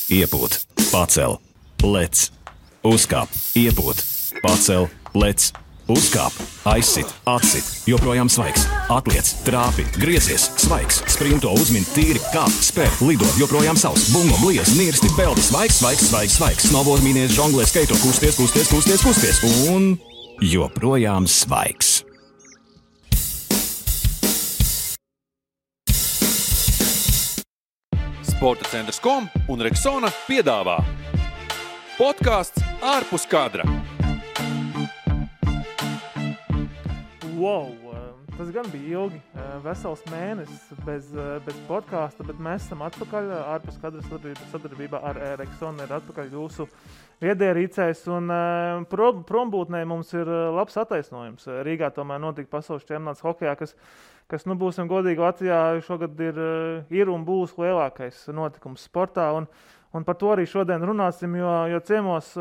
iepūt, pacel, lec, uzkāp, iepūt, pacel, lec, uzkāp, aizsit, atsit, joprojām svaigs, atliec, trāpi, griezies, svaigs, sprinto, uzmin, tīri, kāp, spēr, lido, joprojām savs, bungo, bliez, nirsti, peldi, svaigs, svaigs, svaigs, svaigs, snowboard, mīnies, žonglē, skaito, kusties, kusties, kusties, kusties, un joprojām svaigs. Sporta centrs.com un Rexona piedāvā podcasts ārpus kadra. Wow, tas gan bija ilgi, vesels mēnesis bez podkāsta, bet mēs esam atpakaļ ārpus kadra sadarbībā ar Rexona ir atpakaļ jūsu viedierīcēs, un prombūtnē mums ir labs attaisnojums. Rīgā tomēr notika pasaules čempionāts hokejā, kas būsim godīgi, Latvijā šogad ir un būs lielākais notikums sportā, un par to arī šodien runāsim, jo ciemos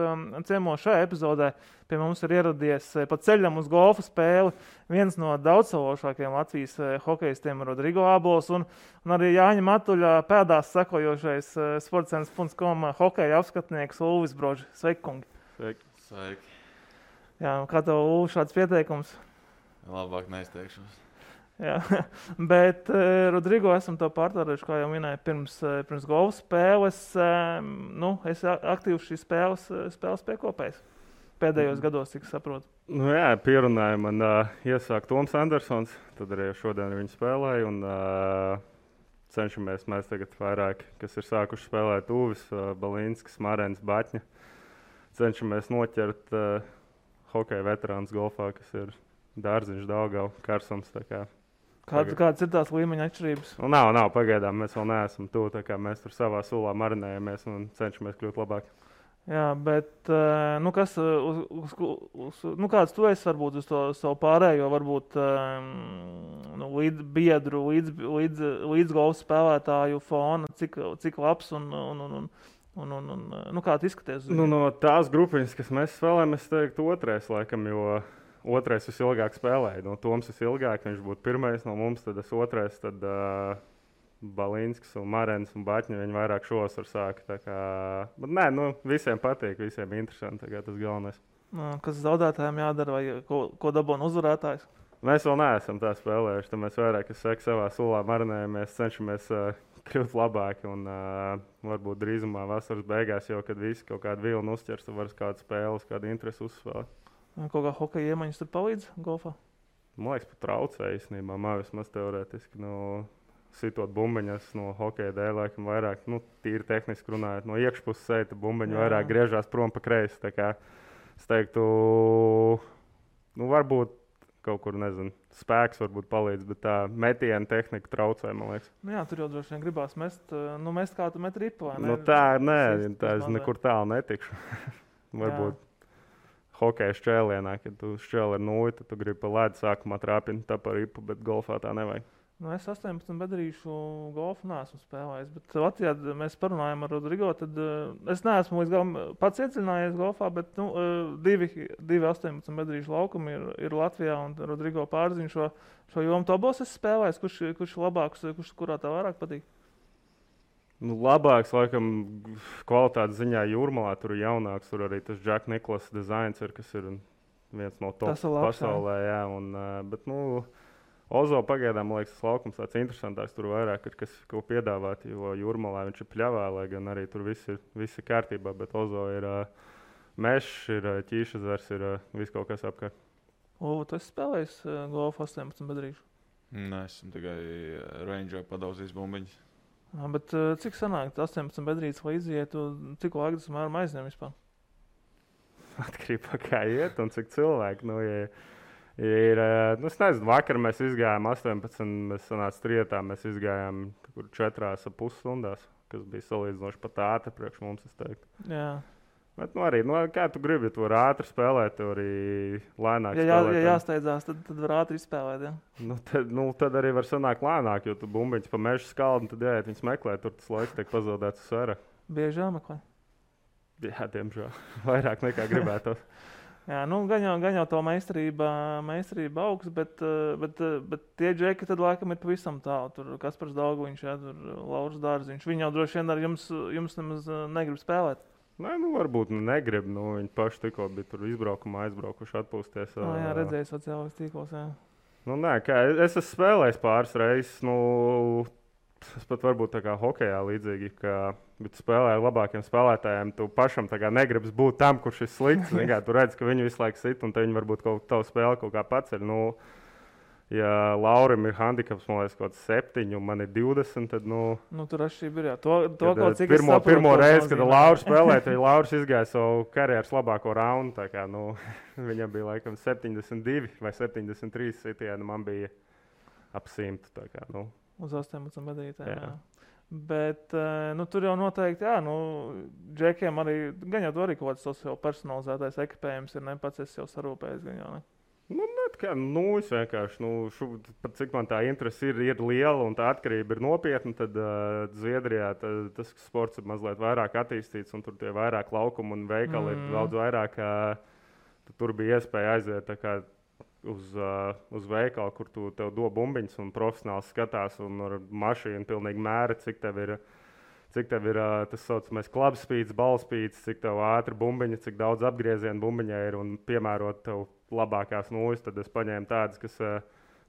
šajā epizodē pie mums ir ieradies pa ceļam uz golfa spēli viens no daudzsološākajiem Latvijas hokejistiem Rodrigo Ābols un arī Jāņa Matuļa pēdās sekojošais sportcentrs.com hokeja apskatnieks Ulvis Broži. Sveiki, kungi! Sveiki! Jā, kā tev, Ulvi, šāds pieteikums? Labāk neizteikšos. Jā, bet Rodrigo esam to pārtārējuši, kā jau minēju, pirms golfa spēles. Es aktīvi šīs spēles piekopējis pēdējos gados, cik saprotu. Jā, pierunāja man iesākt Toms Andersons, tad arī šodien viņu spēlēju, un cenšamies mēs tagad vairāk, kas ir sākuši spēlēt Uvis, Balīnskis, Marens, Baķņa. Cenšamies noķert hokeja veterāns golfā, kas ir Dārziņš, Daugava, Karsums, tā kā. Kādas ir tās līmeņa atšķirības? Nav, pagaidām mēs vēl neesam tuvu, tā kā mēs tur savā sulā marinējamies un cenšamies kļūt labāk. Jā, bet kāds tu esi varbūt uz to savu pārējo, varbūt biedru, līdz golfa spēlētāju fona, cik labs un kā tu izskaties? No tās grupiņas, kas mēs spēlējam, es teiktu otrais laikam, jo otrais visilgāk spēlēja. No Toms visilgāk, viņš būtu pirmais no mums, tad es otrais, tad Balīnskis un Marens un Baķņa, viņi vairāk šovasar sāka. Tā kā, bet visiem patīk, visiem interesanti, tā kā tas galvenais. Kas zaudētājiem jādara vai ko dabūna uzvarētājs? Mēs vēl neesam tā spēlējuši, tad mēs vairāk, es saku, savā sulā marinējamies, cenšamies kļūt labāki un varbūt drīzumā vasaras beigās, jo kad visi kaut kādu vilnu uzķers, tad var kādu spēles, kādu interesi uzspēlēt. Kaut kā hokeja iemaņas tur palīdz golfā? Man liekas, pat traucē īstenībā, vismaz teorētiski. Sitot bumbiņas no hokeja dēļ, laikam vairāk, tīri tehniski runājot, no iekšpuses seita bumbiņu vairāk griežās prom pa kreisi. Tā kā es teiktu, varbūt kaut kur, spēks varbūt palīdz, bet tā metiena tehnika traucē, man liekas. Jā, tur jau droši vien gribās mest kā tu met ripu, vai ne? Tā es nekur tālu netikšu. Varbūt. Hokeja šķēlienā, kad tu šķēli ar nulli, tad tu gribi pa ledu sākumā trāpīt tā par ripu, bet golfā tā nevajag. Es 18 bedrīšu golfu neesmu spēlējis, bet Latvijā mēs parunājam ar Rodrigo, tad es neesmu līdz galam pats iedziļinājies golfā, bet divi 18 bedrīšu laukumi ir Latvijā un Rodrigo pārziņ šo jomu. Tu abos esi spēlējis, kurš labāks, kurā tā vairāk patīk? Labāks, laikam, kvalitātes ziņā Jūrmalā, tur ir jaunāks, tur arī tas Jack Nicklaus dizains ir, kas ir viens no top pasaulē, jā, bet, Ozo pagaidām, man liekas, tas laukums tāds interesantāks, tur vairāk ir, kas ko piedāvāt, jo Jūrmalā viņš ir pļavā, lai gan arī tur viss ir kārtībā, bet Ozo ir mešs, ir ķīšezars, ir viss kaut kas apkārt. Tu esi spēlējis golfu 18 bedrīšu? Nē, esmu tikai range'ā padauzījis bumbiņas. Bet cik sanāk 18 bedrītes, lai izietu, cik laika tas mēram aizņem vispār? Atkarībā kā iet un cik cilvēki. Es nezinu, vakar mēs izgājām 18, mēs sanāca trietā, mēs izgājām 4,5 stundās, kas bija salīdzinoši pat ātri priekš mums, es teiktu. Jā. Bet arī, kā tu gribi, tu vari ātri spēlēt, tu arī lēnāk spēlēt. Ja jāsteidzās, tad var ātri izspēlēt, jā? Tad arī var sanākt lēnāk, jo tu bumbiņas pa mežu skaldu, tad jāiet viņas meklēt, tur tas laiks tiek pazaudēts uz sēra. Bieži jāmeklē? Jā, diemžēl. Vairāk nekā gribētos. Jā, gan jau to meistarība augsts, bet tie džeki tad laikam ir pavisam tālu. Tur Kaspars Dauguviņš, tur Lauris Dārziņš. Viņi jau droši vien ar jums nemaz negrib spēlēt. Nē, varbūt negrib. Viņi paši tikko bija tur aizbraukuši atpūsties. Jā, redzēju sociālajos tīklos, jā. Es esmu spēlējis pāris reizes. Es pat varbūt tā kā hokejā līdzīgi, bet spēlēju labākiem spēlētājiem. Tu pašam negribas būt tam, kurš ir slikts. Tu redz, ka viņi visu laiku sit, un viņi varbūt tavu spēli kaut kā paceļ. Ja Laurim ir handikaps, man liekas, kaut 7, un man ir 20, tad, tur atšķirība ir, jā. To kaut cik pirmo reizi, kad Lauris spēlēja, tad Lauris izgāja savu karjeras labāko raundu. Tā kā, viņam bija laikam 72 vai 73 sitieni, man bija ap 100. Tā kā, Uz 18 gadītājiem, jā. Bet tur jau noteikti, džekiem arī, gan jau tur arī kaut kāds jau personalizētais ekipējums ir, pats es jau sarūpējis, gan jau, ne? Es vienkārši, cik man tā interese ir liela un tā atkarība ir nopietna, tad Zviedrijā tas sports ir mazliet vairāk attīstīts un tur tie vairāk laukumi un veikali ir daudz vairāk, tur bija iespēja aiziet tā kā uz veikalu, kur tev do bumbiņas un profesionāli skatās un ar mašīnu pilnīgi mēra, cik tev ir tas saucamais klubspīds, balspīds, cik tev ātri bumbiņa, cik daudz apgriezienu bumbiņai ir un piemērot tev labākās nūjas, tad es paņēmu tādas, kas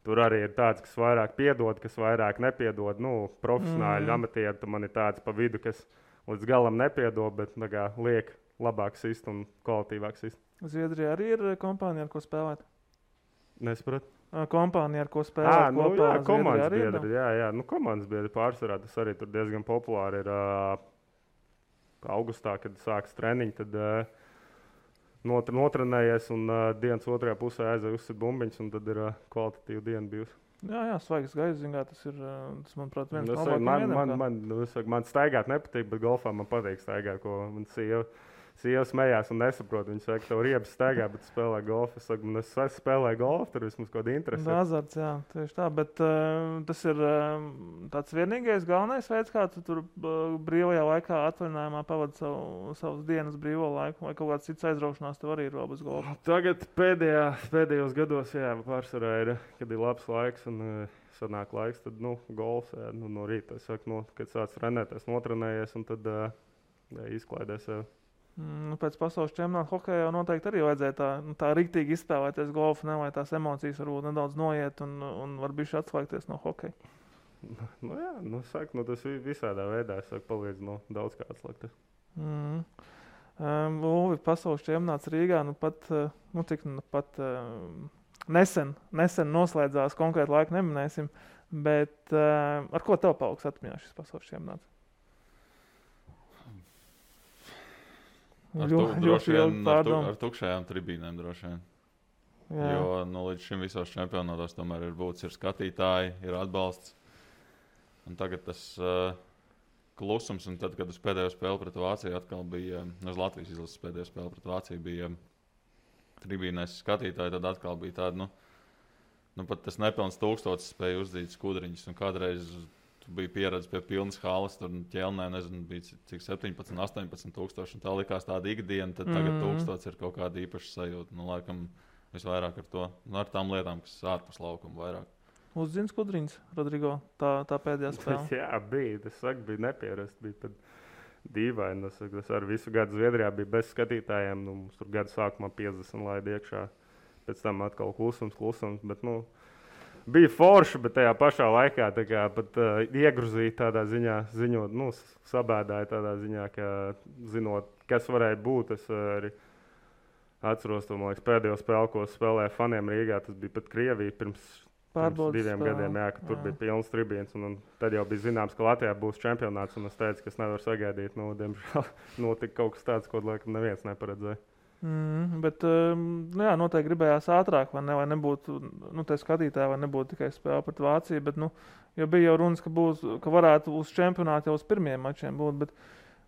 tur arī ir tādas, kas vairāk piedod, kas vairāk nepiedod. Profesionāļi, amatieri, tad man ir tādas pa vidu, kas līdz galam nepiedod, bet liek labāk sist un kvalitīvāk sist. Zviedrijā arī ir kompānija, ar ko spēlēt? Nesapratu. Kompānija, ar ko spēlēt kopā? Jā, komandas biedri. Jā. Komandas biedri pārsvarā tas arī tur diezgan populāri ir. Augustā, kad sākas treniņi, tad notrenējies un dienas otrajā pusē aizēja uzsit bumbiņas, un tad ir kvalitatīva diena bijusi. Jā, svaigs gaiss, tas, manuprāt, viens no labākajiem. Man staigāt nepatīk, bet golfā man patīk staigāt, ko man sieva smējās un nesaprot. Viņa saka, ka tev riebas staigā, bet spēlē golfu. Es saku, es spēlēju golfu, tur vismaz kaut kāda interese. Azarts, jā, tieši tā. Bet tas ir tāds vienīgais galvenais veids, kā tu tur brīvajā laikā atvaļinājumā pavadi savas dienas brīvo laiku, vai kaut kāds cits aizraušanās tev arī ir vēl bez golfa? Tagad pēdējos gados, pārsvarā ir, kad ir labs laiks un sanāk laiks, tad golfs, no rīta. Es saku, kad sāc trenēties, notrenējies un tad izklaidēs sev. Pēc pasaules čempionāta hokejā jau noteikti arī vajadzēja tā riktīgi izspēlēties golfu, lai tās emocijas varbūt nedaudz noiet un var bišķi atslēgties no hokeja. Tas visādā veidā palīdz daudz kā atslēgties. Ulvi, pasaules čempionāts Rīgā nesen noslēdzās, konkrēti laiku neminēsim, bet ar ko tev paliks atmiņā šis pasaules čempionāts? Ar tukšajām tribīnēm droši vien. Jā. Jo līdz šim visos čempionātos tomēr ir būtis skatītāji, ir atbalsts. Un tagad tas klusums, un tad, kad uz pēdējo spēli pret Vāciju atkal bija, uz Latvijas izlases pēdējo spēli pret Vāciju bija tribīnēs skatītāji, tad atkal bija tāda, pat tas nepilns 1000 spēja uzdzīt skudriņus, un kādreiz bija pieredze pie pilnas halas, tur ķelnē, bija cik 17, 18 tūkstoši, un tā likās tāda ikdiena, tad tagad 1000 ir kaut kāda īpaša sajūta. Laikam visvairāk ar to, ar tām lietām, kas ārpus laukuma vairāk. Uzzini skudriņas, Rodrigo, tā pēdējā spēle? Jā, bija, bija nepierast, bija pat dīvaini. Tas ar visu gadu Zviedrijā bija bez skatītājiem, mums tur gadu sākumā 50 laid iekšā, pēc tam atkal klusums, bet, bija forši, bet tajā pašā laikā pat iegruzīja tādā ziņā, ziņot, sabēdāja tādā ziņā, ka zinot, kas varēja būt. Es arī atceros to, man liekas, pēdējo spēli, ko spēlēja faniem Rīgā. Tas bija pat Krievija pirms 2 gadiem, ka tur bija pilns tribīns. Un tad jau bija zināms, ka Latvijā būs čempionāts, un es teicu, ka es nevaru sagaidīt. Diemžēl notika kaut kas tāds, ko laikam neviens neparedzēja. Bet noteikti gribējās ātrāk, vai nebūtu tie skatītāji, vai nebūtu tikai spēle pret Vāciju, bet jo bija jau runas, ka varētu uz čempionātu jau uz pirmiem mačiem būt, bet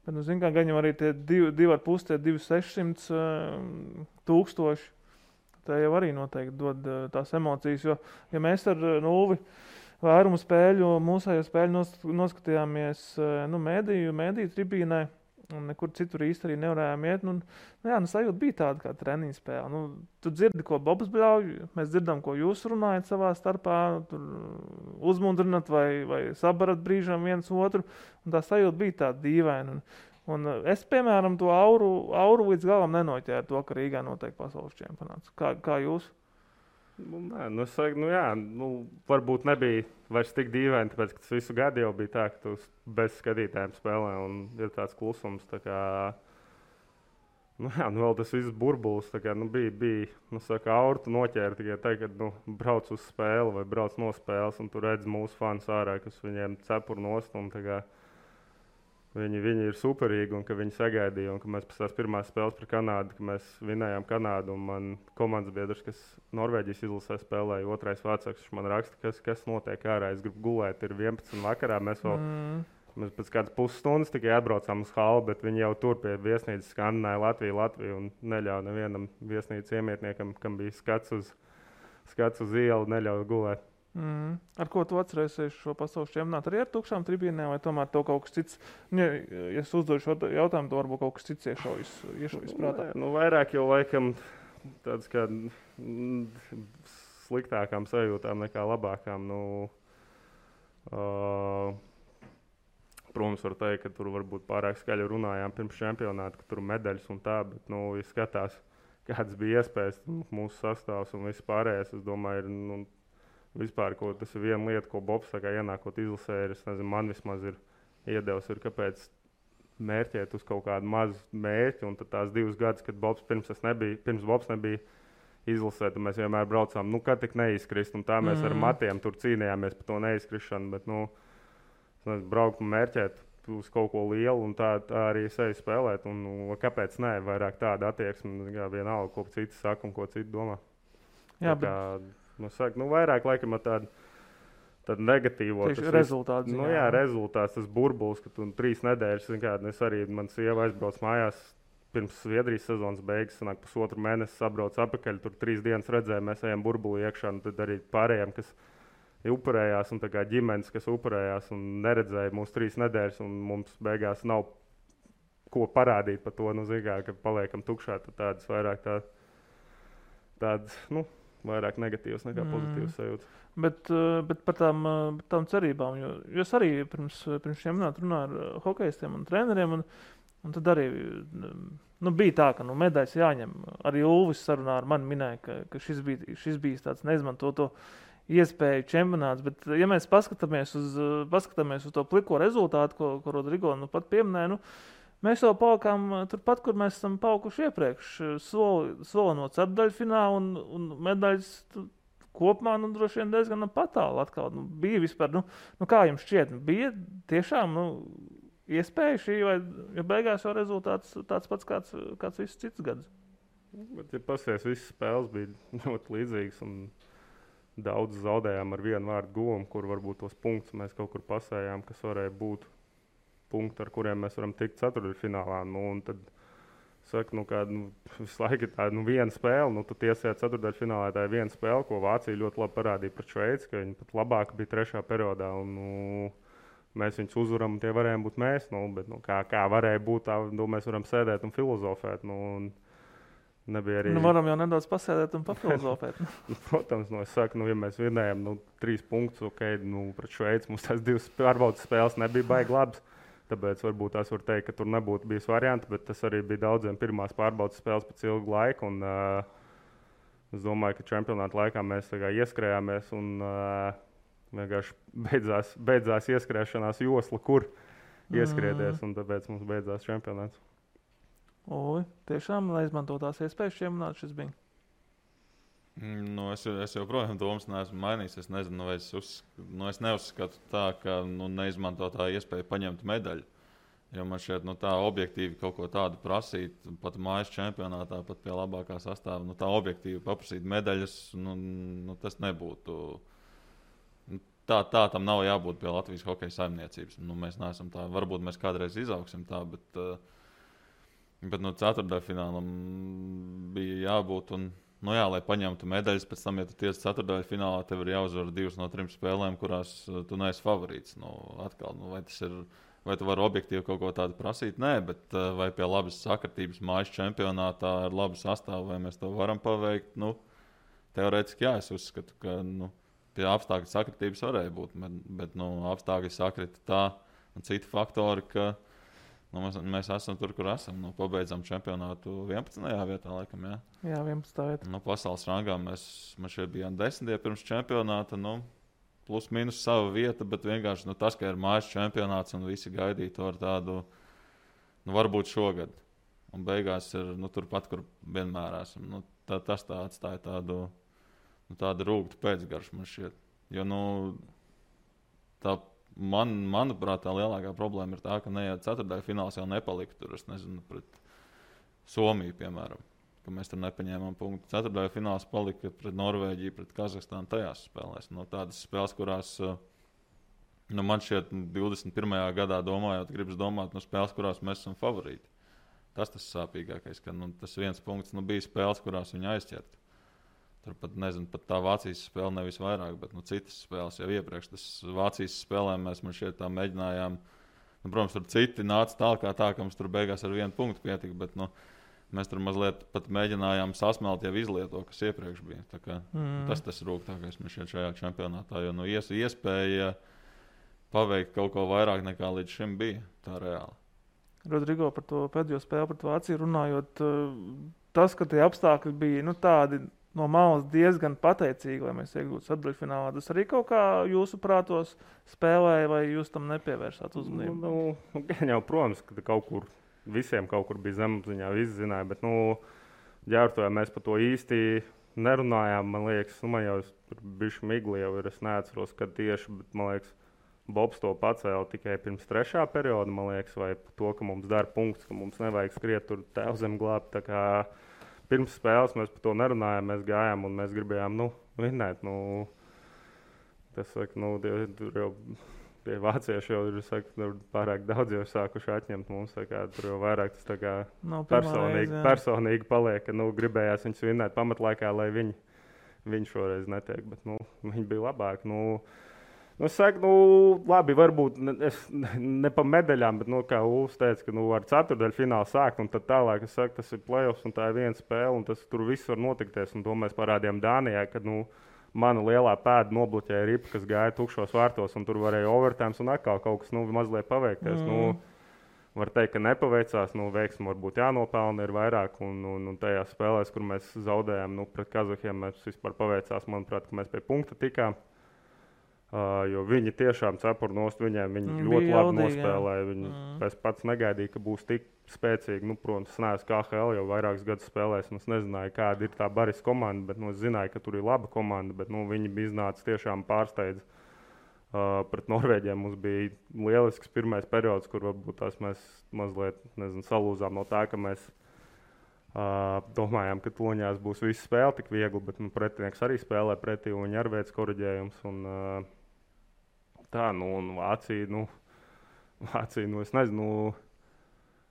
gan jau arī tie 2,5, 2,600 tūkstoši, tā jau arī noteikti dod tās emocijas, jo ja mēs ar Ulvi vairumu spēļu, mūsējo spēļu noskatījāmies mēdīju tribīnē, un nekur citur īsti arī nevarējām iet. Sajūta bija tāda kā treniņa spēle. Tu dzirdi, ko Bobs bļauj, mēs dzirdam, ko jūs runājat savā starpā, tur uzmundrinat vai sabarat brīžam viens otru, un tā sajūta bija tāda dīvaina. Un es, piemēram, to auru līdz galam nenoķēru to, ka Rīgā notiek pasaules čempionāts. Kā jūs? Varbūt nebija vairs tik dīvaini, tāpēc, ka tas visu gadu jau bija tā, ka tu bez skatītājiem spēlē un ir tāds klusums. Tā kā, vēl tas viss burbulis, tā kā, bija auru tu noķēri tikai tā, kad brauc uz spēli vai brauc no spēles, un tu redz mūsu fans ārā, kas viņiem cepur nost, un tā kā viņi ir superīgi, un ka viņi sagaidīja, un ka mēs pēc tās pirmās spēles par Kanādu, ka mēs vinējām Kanādu, un man komandas biedrs, kas Norvēģijas izlasē spēlēja, otrais vācāks, viņš man raksta, kas notiek ārā, es gribu gulēt, ir 11 vakarā, mēs pēc kādas pusstundas tikai atbraucām uz halu, bet viņi jau tur pie viesnīcas skandināja Latviju, un neļauj nevienam viesnīcas iemietniekam, kam bija skats uz ielu, neļauj gulēt. Ar ko tu atcerēsies šo pasaules čempionātu? Arī ar tukšām tribīnēm, vai tomēr tev kaut kas cits? Ja es uzdodu šo jautājumu, to varbūt kaut kas cits iešaujas prātā. Vairāk jau laikam tāds kā sliktākām sajūtām nekā labākām. Protams, var teikt, ka tur varbūt pārāk skaļi runājām pirms čempionāta, ka tur medaļas un tā, bet, ja skatās, kādas bija iespējas, mūsu sastāvs un viss pārējais, es domāju, ir, vispār, tas ir viena lieta, ko Bobs ienākot izlasē, man vismaz ir iedevis, kāpēc mērķēt uz kaut kādu mazu mērķi. Un tad tās 2 gadus, kad Bobs pirms Bobs nebija izlasē, tad mēs vienmēr braucām, kad tik neizkrist. Un tā mēs ar matiem tur cīnījāmies par to neizkrišanu. Bet, braukt un mērķēt uz kaut ko lielu un tā arī sevi spēlēt. Un kāpēc ne? Vairāk tāda attieksme, vienalga, ko citi saka un ko citi domā. Jā, vairāk laikam ar tādu negatīvo rezultātu. Rezultāts, tas burbulis, ka tu 3 nedēļas, es arī, man sieva aizbrauc mājās pirms Zviedrijas sezonas beigas, sanāk 1,5 mēnesi sabrauc apakaļ, tur 3 dienas redzēja, mēs ejam burbuli iekšā, un tad arī pārējiem, kas upurējās, un tā kā ģimenes, kas upurējās un neredzēja mūs 3 nedēļas, un mums beigās nav ko parādīt par to, ka paliekam tukšā, tad tādas vairāk tādas, vairāk negatīvas nekā pozitīvas sajūtas. Bet par tām cerībām, jo es arī pirms čempionāta runāju ar hokejistiem un treneriem, un tad arī bija tā, ka medaļas jāņem. Arī Ulvis sarunā ar mani minēja, ka šis bija tāds neizmantoto iespēju čempionāts, bet ja mēs paskatāmies uz to pliko rezultātu, ko Rodrigo pat pieminēja, mēs jau palikām turpat, kur mēs esam palikuši iepriekš. Soli no ceturdaļfināla un medaļas kopumā droši vien diezgan patāli atkal. Bija vispār, kā jums šķiet, bija tiešām iespēja šī, vai beigās jau rezultāts tāds pats kāds viss cits gads? Bet, ja pasies, visas spēles bija ļoti līdzīgas un daudz zaudējām ar vienu vārdu guvumu, kur varbūt tos punktus mēs kaut kur pasējām, kas varēja būt punkti, ar kuriem mēs varam tikt ceturtdaļfinālā. Un tad saka, visu laiku ir tāda viena spēle. Tu tiesēt ceturtdaļfinālā, tā ir viena spēle, ko Vācija ļoti labi parādīja pret Šveici, ka viņi pat labāk bija 3. periodā. Un, mēs viņus uzvaram, un tie varējām būt mēs. Bet, kā varēja būt, tā mēs varam sēdēt un filozofēt. Nebija arī... varam jau nedaudz pasēdēt un papilozofēt. Protams, es saku, ja mēs vinējam 3 punktus, pret Šveici, mums tās 2 pārbaudas spēles nebija baigi labas. Tāpēc varbūt tās var teikt, ka tur nebūtu bijis varianti, bet tas arī bija daudziem pirmās pārbaudas spēles pēc ilga laika. Un, es domāju, ka čempionāta laikā mēs ieskrējāmies un vienkārši beidzās ieskrēšanās josla, kur ieskrieties, un tāpēc mums beidzās čempionāts. Tiešām neizmantotās iespējas čempionāts šis bija? Es joprojām domas neesmu mainījis. Es nezinu, vai es neuzskatu tā, ka neizmantotā iespēja paņemt medaļu. Jo man šķiet, tā objektīvi kaut ko tādu prasīt, pat mājas čempionātā, pat pie labākā sastāva, tā objektīvi paprasīt medaļas, tas nebūtu. Tā tam nav jābūt pie Latvijas hokeja saimniecības. Mēs neesam tā, varbūt mēs kādreiz izaugsim tā, bet ceturtdaļfinālam bija jābūt. Lai paņemtu medaļas, pēc tam, ja tu tiesi ceturtdaļfinālā, tev ir jāuzvar 2 no 3 spēlēm, kurās tu neesi favorīts. vai tu vari objektīvi kaut ko tādu prasīt? Nē, bet vai pie labas sakritības mājas čempionātā ar labu sastāvu, vai mēs to varam paveikt? Nu, teorētiski jā, es uzskatu, ka pie apstākļu sakritības varēja būt, bet apstākļi sakrita tā un citi faktori, ka mēs esam tur, kur esam. Pabeidzam čempionātu 11. vietā, laikam, jā. Jā, 11. vietā. Pasaules rangā mēs šeit bijām 10. pirms čempionāta, plus mīnus sava vieta, bet vienkārši tas, ka ir mājas čempionāts un visi gaidīja to ar tādu, varbūt šogad. Un beigās ir turpat, kur vienmēr esam. Tas tā atstāja tādu rūgtu pēcgaršu man šķiet. Jo, manuprāt, tā lielākā problēma ir tā, ka neiet ceturtdaļu fināls jau nepalika tur, es nezinu, pret Somiju, piemēram, ka mēs tur nepaņēmām punktu. Ceturtdaļu fināls palika pret Norvēģiju, pret Kazahstānu tajās spēlēs. Tādas spēles, kurās, man šķiet, 21. gadā domājot, gribas domāt, spēles, kurās mēs esam favorīti. Tas sāpīgākais, ka tas viens punkts bija spēles, kurās viņi aizķert. Tur pat tā Vācijas spēle nevis vairāk, bet citas spēles jau iepriekš. Tas Vācijas spēlēm mēs šeit tā mēģinājām. Protams, tur citi nāca tālāk, ka mums tur beigās ar vienu punktu pietika, bet mēs tur mazliet pat mēģinājām sasmelt jau izlieto, kas iepriekš bija. Tas rūgtākais mums šajā čempionātā, jo iespēja paveikt kaut ko vairāk nekā līdz šim bija tā reāli. Rodrigo, par to pēdējo spēli pret Vāciju runājot, tas, ka tie apstākļi bija tādi no malas diezgan pateicīgi, lai mēs iegūtu ceturtdaļfinālā. Tas arī kaut kā jūsu prātos spēlēja, vai jūs tam nepievērsāt uzmanību? Gan jau, protams, ka visiem kaut kur bija zemapziņā, visi zināja, bet ģērbtojā mēs par to īsti nerunājām. Man liekas, man jau tur bišķi migli jau ir, es neatceros, kad tieši, bet man liekas, Bobs to pacēla tikai pirms 3. perioda, man liekas, vai to, ka mums dara punkts, ka mums nevajag skriet tur tēvzem glābt. Tā kā pirms spēles mēs par to nerunājām, mēs gājām un mēs gribējām, vinnēt. Tas saka, tur jau tie vācieši jau ir, pārāk daudz jau sākuši atņemt mums, tā kā tur jau vairāk tas tā kā personīgi paliek, ka, gribējās viņus vinnēt pamatlaikā, lai viņi šoreiz netiek, bet, viņi bija labāki, Es saku, labi, varbūt ne pa medaļām, bet, kā Ulfs teica, ka ar ceturtdaļu finālu sākt, un tad tālāk, es saku, tas ir playoffs, un tā ir viena spēle, un tas tur viss var notikties, un to mēs parādījām Dānijā, kad, mana lielā pēda nobloķēja ripa, kas gāja tukšos vārtos, un tur varēja overtimes, un atkal kaut kas, mazliet paveikties, var teikt, ka nepaveicās, veiksmi varbūt jānopelna ir vairāk, un tajās spēlēs, kur mēs zaudējām, pret Kazahiem, mēs vispār paveicās, manuprāt, ka mēs pie punkta tikām. Jo viņi tiešām cepur nost, viņi ļoti labi nospēlēja. Es pats negaidīju, ka būs tik spēcīgi. Protams, es neesmu KHL jau vairākus gadus spēlējis. Es nezināju, kāda ir tā Baris komanda, bet es zināju, ka tur ir laba komanda. Bet viņi bija iznācis tiešām pārsteidz. Pret Norvēģiem mums bija lielisks pirmais periods, kur varbūt tās mēs mazliet salūzām no tā, ka mēs domājām, ka toņās būs visa spēle tik viegli, bet pretinieks arī spēlē pretī un viņi arī veic koriģējums. Un Vācija, es nezinu,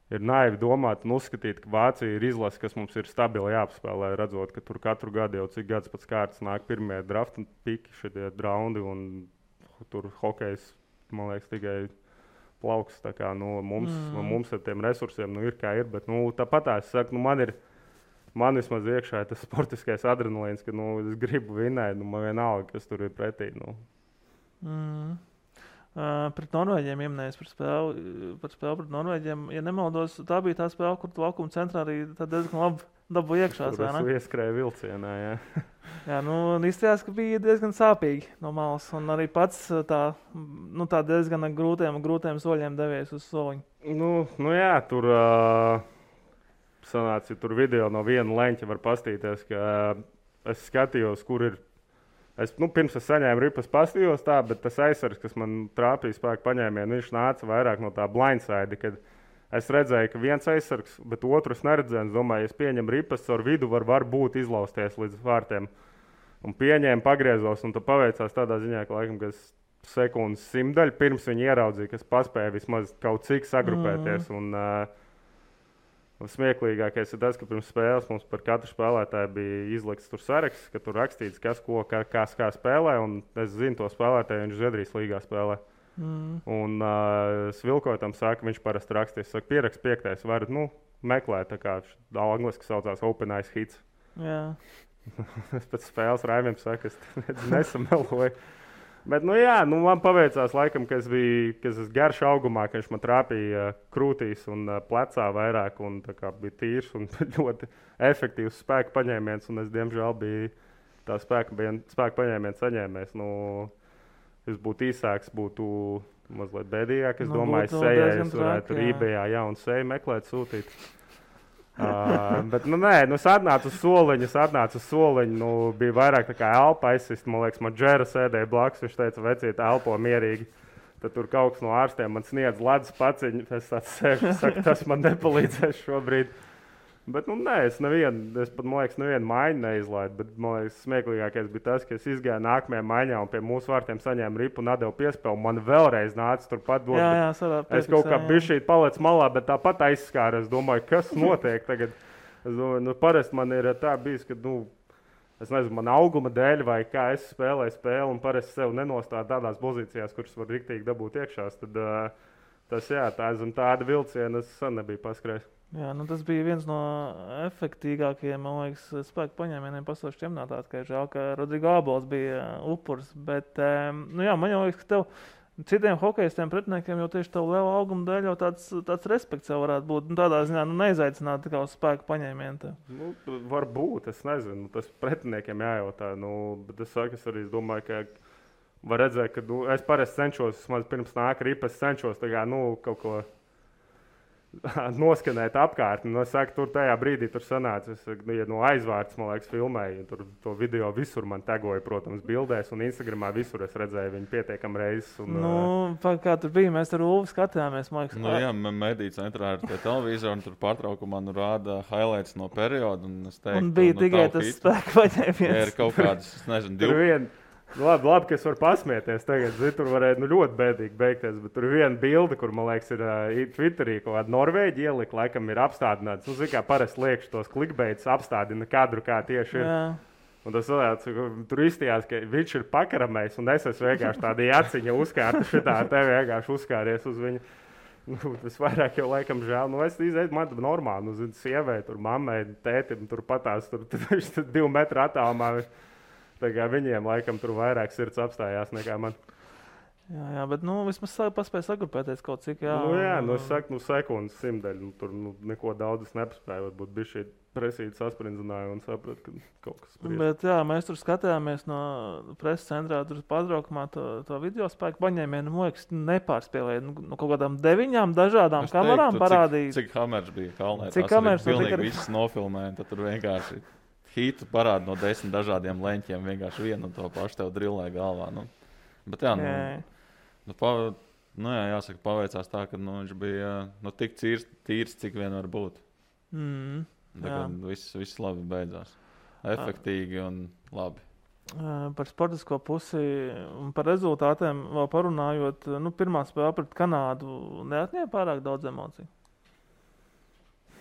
ir naivi domāt un uzskatīt, ka Vācija ir izlase, kas mums ir stabili jāapspēlē, redzot, ka tur katru gadu jau cik gads pēc kārtas nāk pirmie drafta piki, šitie raundi, un tur hokejs, man liekas, tikai plauks. Tā kā mums ar tiem resursiem ir kā ir, bet tāpat es saku, man vismaz iekšā ir tas sportiskais adrenalīns, ka es gribu vinnēt, man vienalga, kas tur ir pretī. Pret Norvēģiem ieminējis par spēli pret Norvēģiem. Ja nemaldos, tā bija tā spēle, kur tu laukuma centrā arī diezgan labi dabū iekšā. Tur ieskrēja vilcienā, jā. Jā, izstājās, ka bija diezgan sāpīgi no malas. Un arī pats tā diezgan grūtiem soļiem devies uz soliņu. Jā, tur sanāca, ja tur video no viena leņķa var pastīties, ka es skatījos, kur ir. Pirms es saņēmu ripas pastījos tā, bet tas aizsargs, kas man trāpīja spēku paņēmienu, viņš nāca vairāk no tā blindside, kad es redzēju, ka viens aizsargs, bet otrs neredzēju. Es domāju, ja es pieņemu ripas, ar vidu var būt izlausties līdz vārtiem. Un pieņēmu, pagriezos, un tad paveicās tādā ziņā, ka laikam, ka sekundes simtdaļu pirms viņi ieraudzīja, ka es paspēju vismaz kaut cik sagrupēties. Smieklīgākais ir tas, ka pirms spēles mums par katru spēlētāju bija izlikts tur saraksts, ka tur rakstīts, kas ko kā spēlē. Un es zinu to spēlētāju, viņš Zviedrijas līgā spēlē. Un Svilkotam saka, viņš parasti rakstīs, saka, pierakst 5. varat, meklēt, tā kā angliski saucās Open Ice Hits. Jā. Es pēc spēles Raimiem saku, es nesameloju. Bet, man paveicās laikam, ka es esmu garš augumā, ka viņš man trāpīja krūtīs un plecā vairāk, un tā kā bija tīrs un ļoti efektīvs spēka paņēmiens, un es, diemžēl, biju tā spēka paņēmiens saņēmējs. Es būtu īsāks, būtu mazliet bēdīgāk. Es domāju, sejai es varētu eBayā jaunu seju meklēt, sūtīt. Bet, es atnācu uz soliņu, bija vairāk tā kā elpa aizsist. Man liekas, man Džera sēdēja blakus, viņš teica, vecīt, elpo mierīgi. Tad tur kaut kas no ārstiem man sniedz ledus paciņu. Es tāds sēžu, saku, tas man nepalīdzēs šobrīd. Bet, es pat, man liekas, nevienu maiņu neizlaidu. Bet, man liekas, smieklīgākais bija tas, ka es izgāju nākamajā maiņā un pie mūsu vārtiem saņēmu ripu un atdevu piespēli. Man vēlreiz nāca turpat dot. Es kaut kā bišķīt paliec malā, bet tāpat aizskāru. Es domāju, kas notiek tagad. Es domāju, parasti man ir tā bijis, ka, es nezinu, man auguma dēļ vai kā es spēlēju spēli un parasti sev nenostādu tādās pozīcijās, kuras var riktīgi dabūt iekšās. Tad tāda vilciena es sen nebiju paskrējis. Jā, tas bija viens no efektīgākajiem, man liekas, spēku paņēmieniem pasaules čempionātā. Žēl, ka Rodrigo Abols bija upurs. Bet, man jau liekas, ka tev citiem hokejistiem pretiniekiem jau tieši tev liela auguma dēļ jau tāds respekts jau varētu būt. Tādā ziņā neizaicināt tikai uz spēku paņēmienu. Varbūt, es nezinu, tas pretiniekiem jājautā. Bet es arī domāju, ka var redzēt, ka es parasti cenšos, pirms nāk ripa, es cenšos kaut ko noskanēt apkārt. Es saku, tur tajā brīdī tur sanāca. No aizvārds, man liekas, filmēju. Tur to video visur man tagoja, protams, bildēs. Un Instagramā visur es redzēju viņu pietiekam reizes. Kā tur bija, mēs ar Ulvi skatījāmies. Mediju centrā ir tie televizori, un tur pārtraukumā rāda highlights no perioda. Un bija tikai tas spēku paņēmiens. Ir kaut kādas, es nezinu, 2. Labi, ka es varu pasmieties tagad. Tur varētu ļoti bēdīgi beigties. Bet tur ir viena bilde, kur, man liekas, ir Twitterī kaut kāda Norvēģi ielika, laikam ir apstādināts. Kā parasti liekš tos klikbeidus apstādina kadru, kā tieši ir. Un tas tur izstījās, ka viņš ir pakaramējis, un es esmu vienkārši tāda jaciņa uzkārta šitā, te vienkārši uzkāries uz viņu. Tas vairāk jau laikam žēl. Es izēju, man normāli, sievai, tur mammai, tētim, tur patās, tur 2 metru attālumā. Tā kā viņiem laikam tur vairāk sirds apstājās nekā man. Jā, bet vismaz paspēja sagrupēties kaut cik. Es saku, sekundes simtdaļu. Tur neko daudz nepaspēju. Varbūt bija šī presīta sasprindzināja un sapratu, ka kaut kas spriedz. Bet mēs tur skatījāmies no preses centrā, tur pārtraukumā to video spēku paņēmienu. Man liekas, nepārspēlēja. Kaut kādām 9 dažādām kamerām parādīja. Cik kameras bija kalnē? Cik kameras pilnīgi visas nofilmēja. Tad tur vienkārši hītu parāda no 10 dažādiem leņķiem. Vienkārši vienu un to pašu tev drillē galvā. Bet jāsaka, paveicās tā, ka viņš bija tik tīrs, cik vien var būt. Viss labi beidzās. Efektīgi un labi. Par sportisko pusi un par rezultātiem vēl parunājot, pirmā spēle pret Kanādu neatņēma pārāk daudz emociju.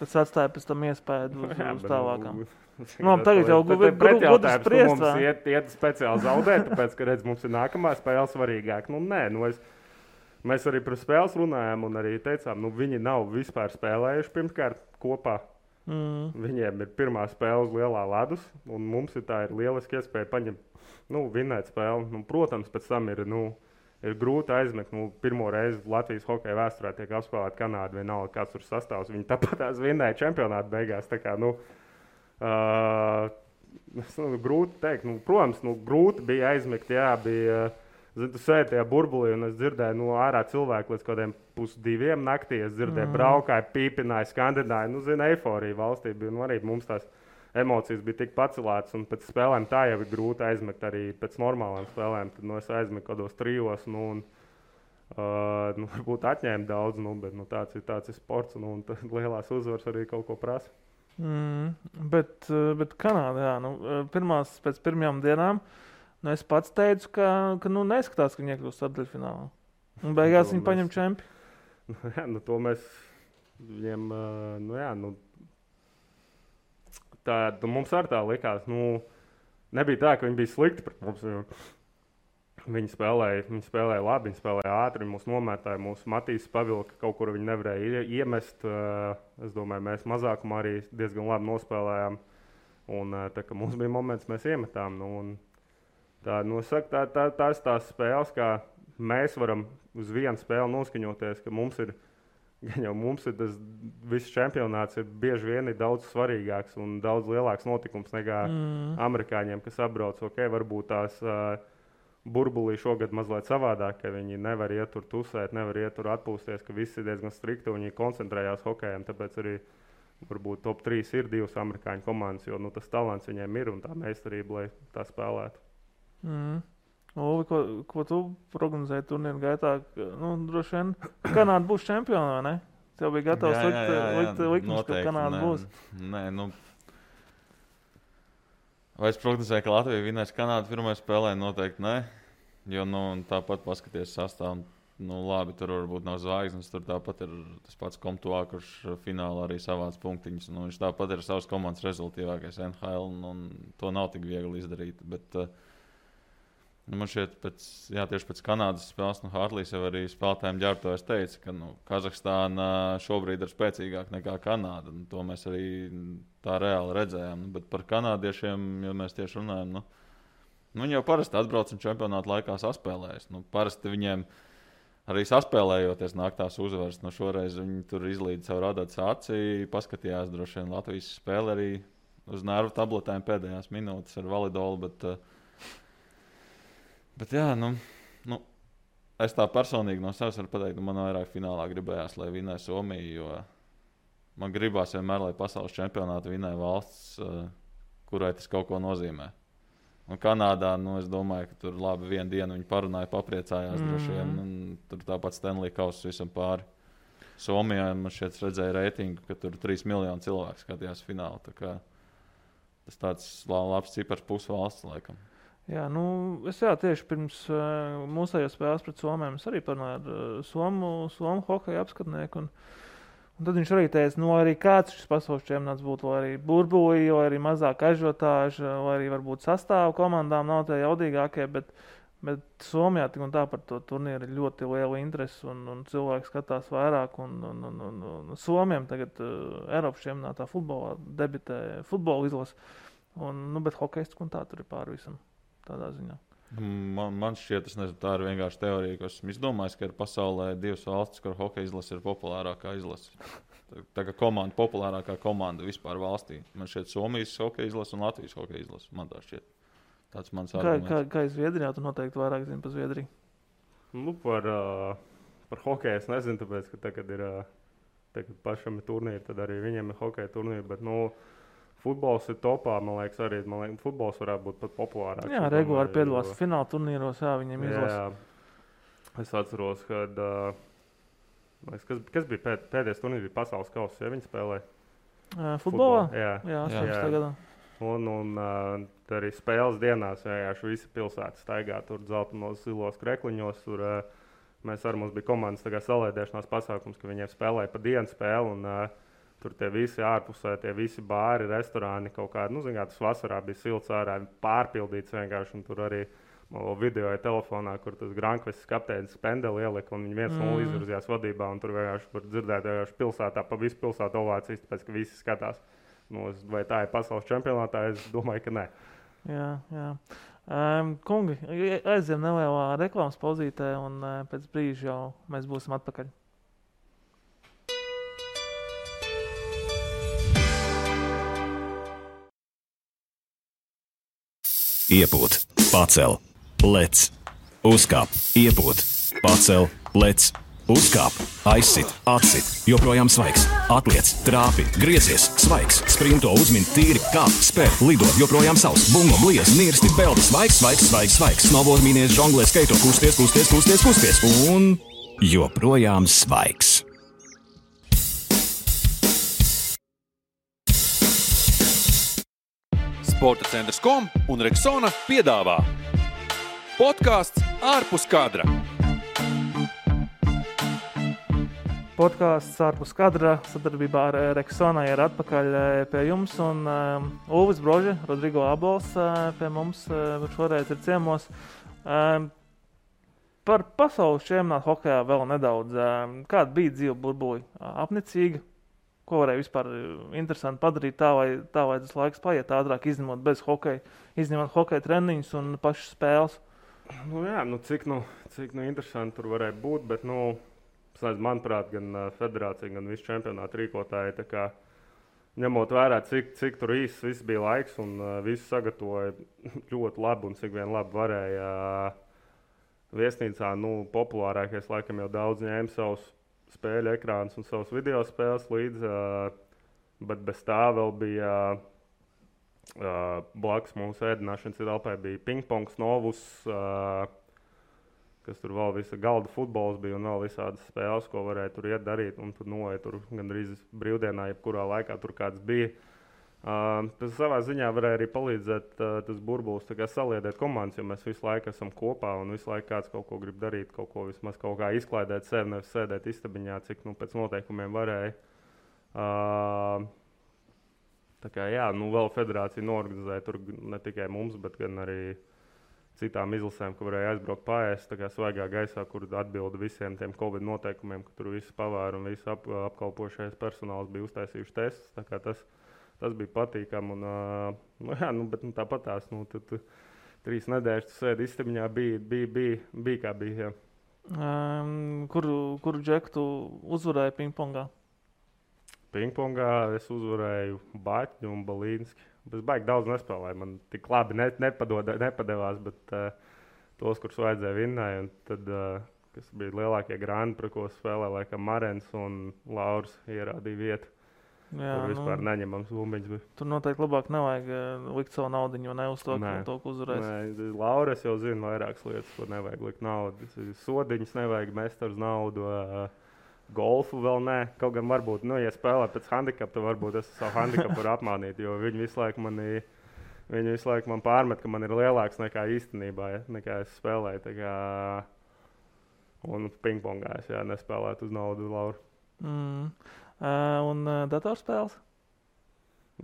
Kas atstāja pēc tam iespēju uz tālākām. Tagad jau gudri spriest. Mums iet speciāli zaudēt, tāpēc, ka mums ir nākamā spēle svarīgāk. Mēs arī par spēles runājām un arī teicām, viņi nav vispār spēlējuši pirmkārt kopā. Viņiem ir pirmā spēle uz lielā ledus, un mums ir lieliski iespēja paņemt, vinēt spēli. Protams, pēc tam ir grūti aizmekt. Pirmo reizi Latvijas hokeja vēsturē tiek apspēlēta Kanāda, vienalga kāds tur sastāvs. Viņi tāpat vinnēja čempionātu beigās. Tā kā, grūti teikt. Protams, grūti bija aizmekt, bija. Tu sēdi tajā burbulī, un es dzirdēju ārā cilvēku līdz kādiem 1:30 naktī. Es dzirdēju, braukāju, pīpināju, skandināju. Eiforija valstī bija. Arī mums tās emocijas bija tik pacelētas, un pēc spēlēm tā jau ir grūti aizmekt arī pēc normālām spēlēm. Tad es aizmetu kādos 3, varbūt atņēmu daudz, bet tāds ir sports, un lielās uzvaras arī kaut ko prasa. Bet Kanādā, pēc pirmajām dienām, es pats teicu, ka neskatās, ka viņi iekļūst ceturtdaļfinālā. Un beigās viņi paņem čempionu. To mēs viņiem, tā mums arī tā likās. Nebija tā, ka viņi bija slikti pret mums. Viņi spēlēja labi, viņi spēlēja ātri, viņi mūs nomētāja, mūsu Matīs pavilka, kaut kur viņi nevarēja iemest. Es domāju, mēs mazākumā arī diezgan labi nospēlējām. Un tā, ka mums bija moments, mēs iemetām. Tās tās spēles, kā mēs varam uz vienu spēli noskaņoties, ka mums ir tas viss čempionāts ir bieži vien daudz svarīgāks un daudz lielāks notikums nekā amerikāņiem, kas apbrauc. Varbūt tās burbulī šogad mazliet savādāk, ka viņi nevar iet tur tusēt, nevar iet tur atpūsties, ka visi ir diezgan strikti un viņi koncentrējās hokejam. Tāpēc arī varbūt top 3 ir 2 amerikāņu komandas, jo tas talants viņiem ir un tā meistarība, lai tā spēlētu. Uvi, ko tu prognozēji turnīru gaitā? Droši vien Kanāda būs čempiona, vai ne? Tev bija gatavs likt likums, ka Kanāda būs. Nē, vai es prognozēju, ka Latvija vinēs Kanādu pirmajā spēlē? Noteikti nē. Jo tāpat paskaties sastāvu. Labi, tur varbūt nav zvaigznes, tur tāpat ir tas pats Komtuā, kurš finālā arī savāc punktiņus. Viņš tāpat ir savas komandas rezultātīvākais NHL, un to nav tik viegli izdarīt. Bet man šķiet, tieši pēc Kanādas spēles, Hartlīs jau arī spēlētājiem ģērbtājs teica, ka Kazahstāna šobrīd ir spēcīgāka nekā Kanāda. To mēs arī tā reāli redzējām. Bet par kanādiešiem, ja mēs tieši runājam, viņi jau parasti atbrauc un čempionāta laikā saspēlējas. Parasti viņiem arī saspēlējoties nāk tās uzvaras. Šoreiz viņi tur izlīd savu radāts aci, paskatījās droši vien Latvijas spēli arī uz nervu tabletēm pēdējās minūtes ar validolu. Bet jā, es tā personīgi no sevis varu pateikt, man vairāk finālā gribējās, lai vinē Somija, jo man gribās vienmēr, lai pasaules čempionātu vinē valsts, kurai tas kaut ko nozīmē. Un Kanādā, es domāju, ka tur labi vienu dienu viņi parunāja, papriecājās droši vien, un tur tāpat Stanley Kauss visam pāri. Somijā man šeit redzēja reitingu, ka tur 3 miljoni cilvēku skatījās finālu, tā kā tas tāds labs cipars pusvalsts laikam. Jā, es tieši pirms mūsējos spēles pret Somiem es arī parunāju ar Somu hokeja apskatnieku. Un tad viņš arī teica, arī kāds šis pasaules čempionāts būtu, vai arī burbulī, vai arī mazāk ažiotāža, vai arī varbūt sastāvu komandām nav tie jaudīgākie, bet Somijā tik un tā par to turnīru ir ļoti liela interese un cilvēki skatās vairāk. Un Somiem tagad Eiropas čempionātā futbolā debitē futbola izlase, bet hokejs un tā tur ir pāri visam tādā ziņā. Man šķiet, tā ir vienkārši teorija, ka esmu izdomājis, ka ir pasaulē 2 valstis, kur hokeja izlase ir populārākā izlase. Tā kā komanda, populārākā komanda vispār valstī. Man šķiet Somijas hokeja izlase un Latvijas hokeja izlase. Man tā šķiet. Tāds mans arguments. Kā Zviedrijā, tu noteikti vairāk zini par Zviedriju? Par hokeju es nezinu, tāpēc, ka tagad pašam ir turnīri, tad arī viņiem ir hokeja turnīri, bet futbols ir topā, man liekas, arī futbols varētu būt pat populārāks. Jā, regulāri piedalās fināla turnīros, viņiem izlasa. Jā. Es atceros, kad kas bija pēdējais turnīrs, bija pasaules kauss, ja viņi spēlēja? Futbolā? Jā, 18. gadā. Un arī spēles dienās vienkārši visi pilsētas staigā tur dzeltenos zilos krekliņos. Tur mēs arī mums bija komandas salēdēšanās pasākums, ka viņiem spēlēja pa dienu spēli. Un, tur tie visi ārpusē, tie visi bāri, restorāni kaut kādi. Tas vasarā bija silts ārā, pārpildīts vienkārši. Un tur arī videoja telefonā, kur tas Grankvests kapteinis Pendeli ielika, un viņi 1-0 izvirzījās vadībā. Un tur vienkārši var dzirdēt pilsētā, pa visu pilsētu ovācijas, tāpēc, ka visi skatās. Vai tā ir pasaules čempionātā? Es domāju, ka nē. Jā. Kungi, aizjām nelielā reklāmas pauzītē, un pēc brīža jau mēs būsim atpakaļ. Iepūt, pacel, lec, uzkāp, iepūt, pacel, lec, uzkāp, aizsit, atsit, joprojām svaigs, atliec, trāpi, griezies, svaigs, sprinto, uzmin, tīri, kāp, spēr, lido, joprojām savs, bungo, bliez, nirsti, peldi, svaigs, snowboard, mīnies, žonglē, skaito, kusties, un joprojām svaigs. Sporta centrs.com un Rexona piedāvā podkāsts ārpus kadra. Podkāsts ārpus kadra sadarbībā ar Rexona ir atpakaļ pie jums. Un Ulvis Brože, Rodrigo Abols pie mums šoreiz ir ciemos. Par pasaules čempionātu hokejā vēl nedaudz. Kāda bija dzīve burbuļi? Apnicīga? Ko varēja vispār interesanti padarīt tā, vai tas laiks paiet ātrāk, izņemot bez hokeja, izņemot hokeja treniņus un pašas spēles? Cik interesanti tur varēja būt, bet, manuprāt, gan federācija, gan visi čempionāti rīkotāji, tā kā ņemot vērā, cik tur īsts viss bija laiks un visi sagatavoja ļoti labi un cik vien labi varēja viesnīcā, populārākais laikam jau daudz ņēma savus spēļu ekrānus un savus video spēles līdzi, bet bez tā vēl bija blakus mūsu ēdināšanas telpai bija pingpongs, novus, kas tur vēl visa galda futbols bija un vēl visādas spēles, ko varēja tur iet darīt, un tur noeja tur gandrīz brīvdienā, jebkurā laikā tur kāds bija. Tas savā ziņā varēja arī palīdzēt tas burbulis saliedēt komandas, jo mēs visu laiku esam kopā un visu laiku kāds kaut ko grib darīt, kaut ko vismaz kaut kā izklaidēt sevi, nevis sēdēt istabiņā, cik pēc noteikumiem varēja. Vēl federācija noorganizēja tur ne tikai mums, bet gan arī citām izlasēm, ka varēja aizbraukt paēst svaigā gaisā, kur atbilda visiem tiem Covid noteikumiem, ka tur visi pavēri un visi apkalpošais personāls bija uztaisījuši testus. Tas bija patīkami. Bet tāpat tās 3 nedēļas sēdi istabiņā bija kā bija. Kuru džeku tu uzvarēji pingpongā? Pingpongā es uzvarēju Baķņu un Balīnski. Es baigi daudz nespēlēju. Man tik labi nepadevās, bet tos, kurus vajadzēja vinnēja. Un tad, kas bija lielākie grāni, par ko spēlēja, laikam Marens un Lauris ierādīja vietu. Jā, tur vispār neņemams bumbiņš. Tur noteikti labāk nevajag likt savu naudiņu, ne uz to, ko uzvarēs. Nē, Lauras jau zina vairākas lietas, ko nevajag likt naudu. Sodiņus nevajag mest ar naudu, golfu vēl nē. Kaut gan varbūt, ja spēlē pēc handikapa, tad varbūt es savu handikapu varu apmānīt, jo viņi visu laiku man pārmet, ka man ir lielāks nekā īstenībā, nekā es spēlēju. Un pingpongā es nespēlētu uz naudu Lauru. Un datorspēles?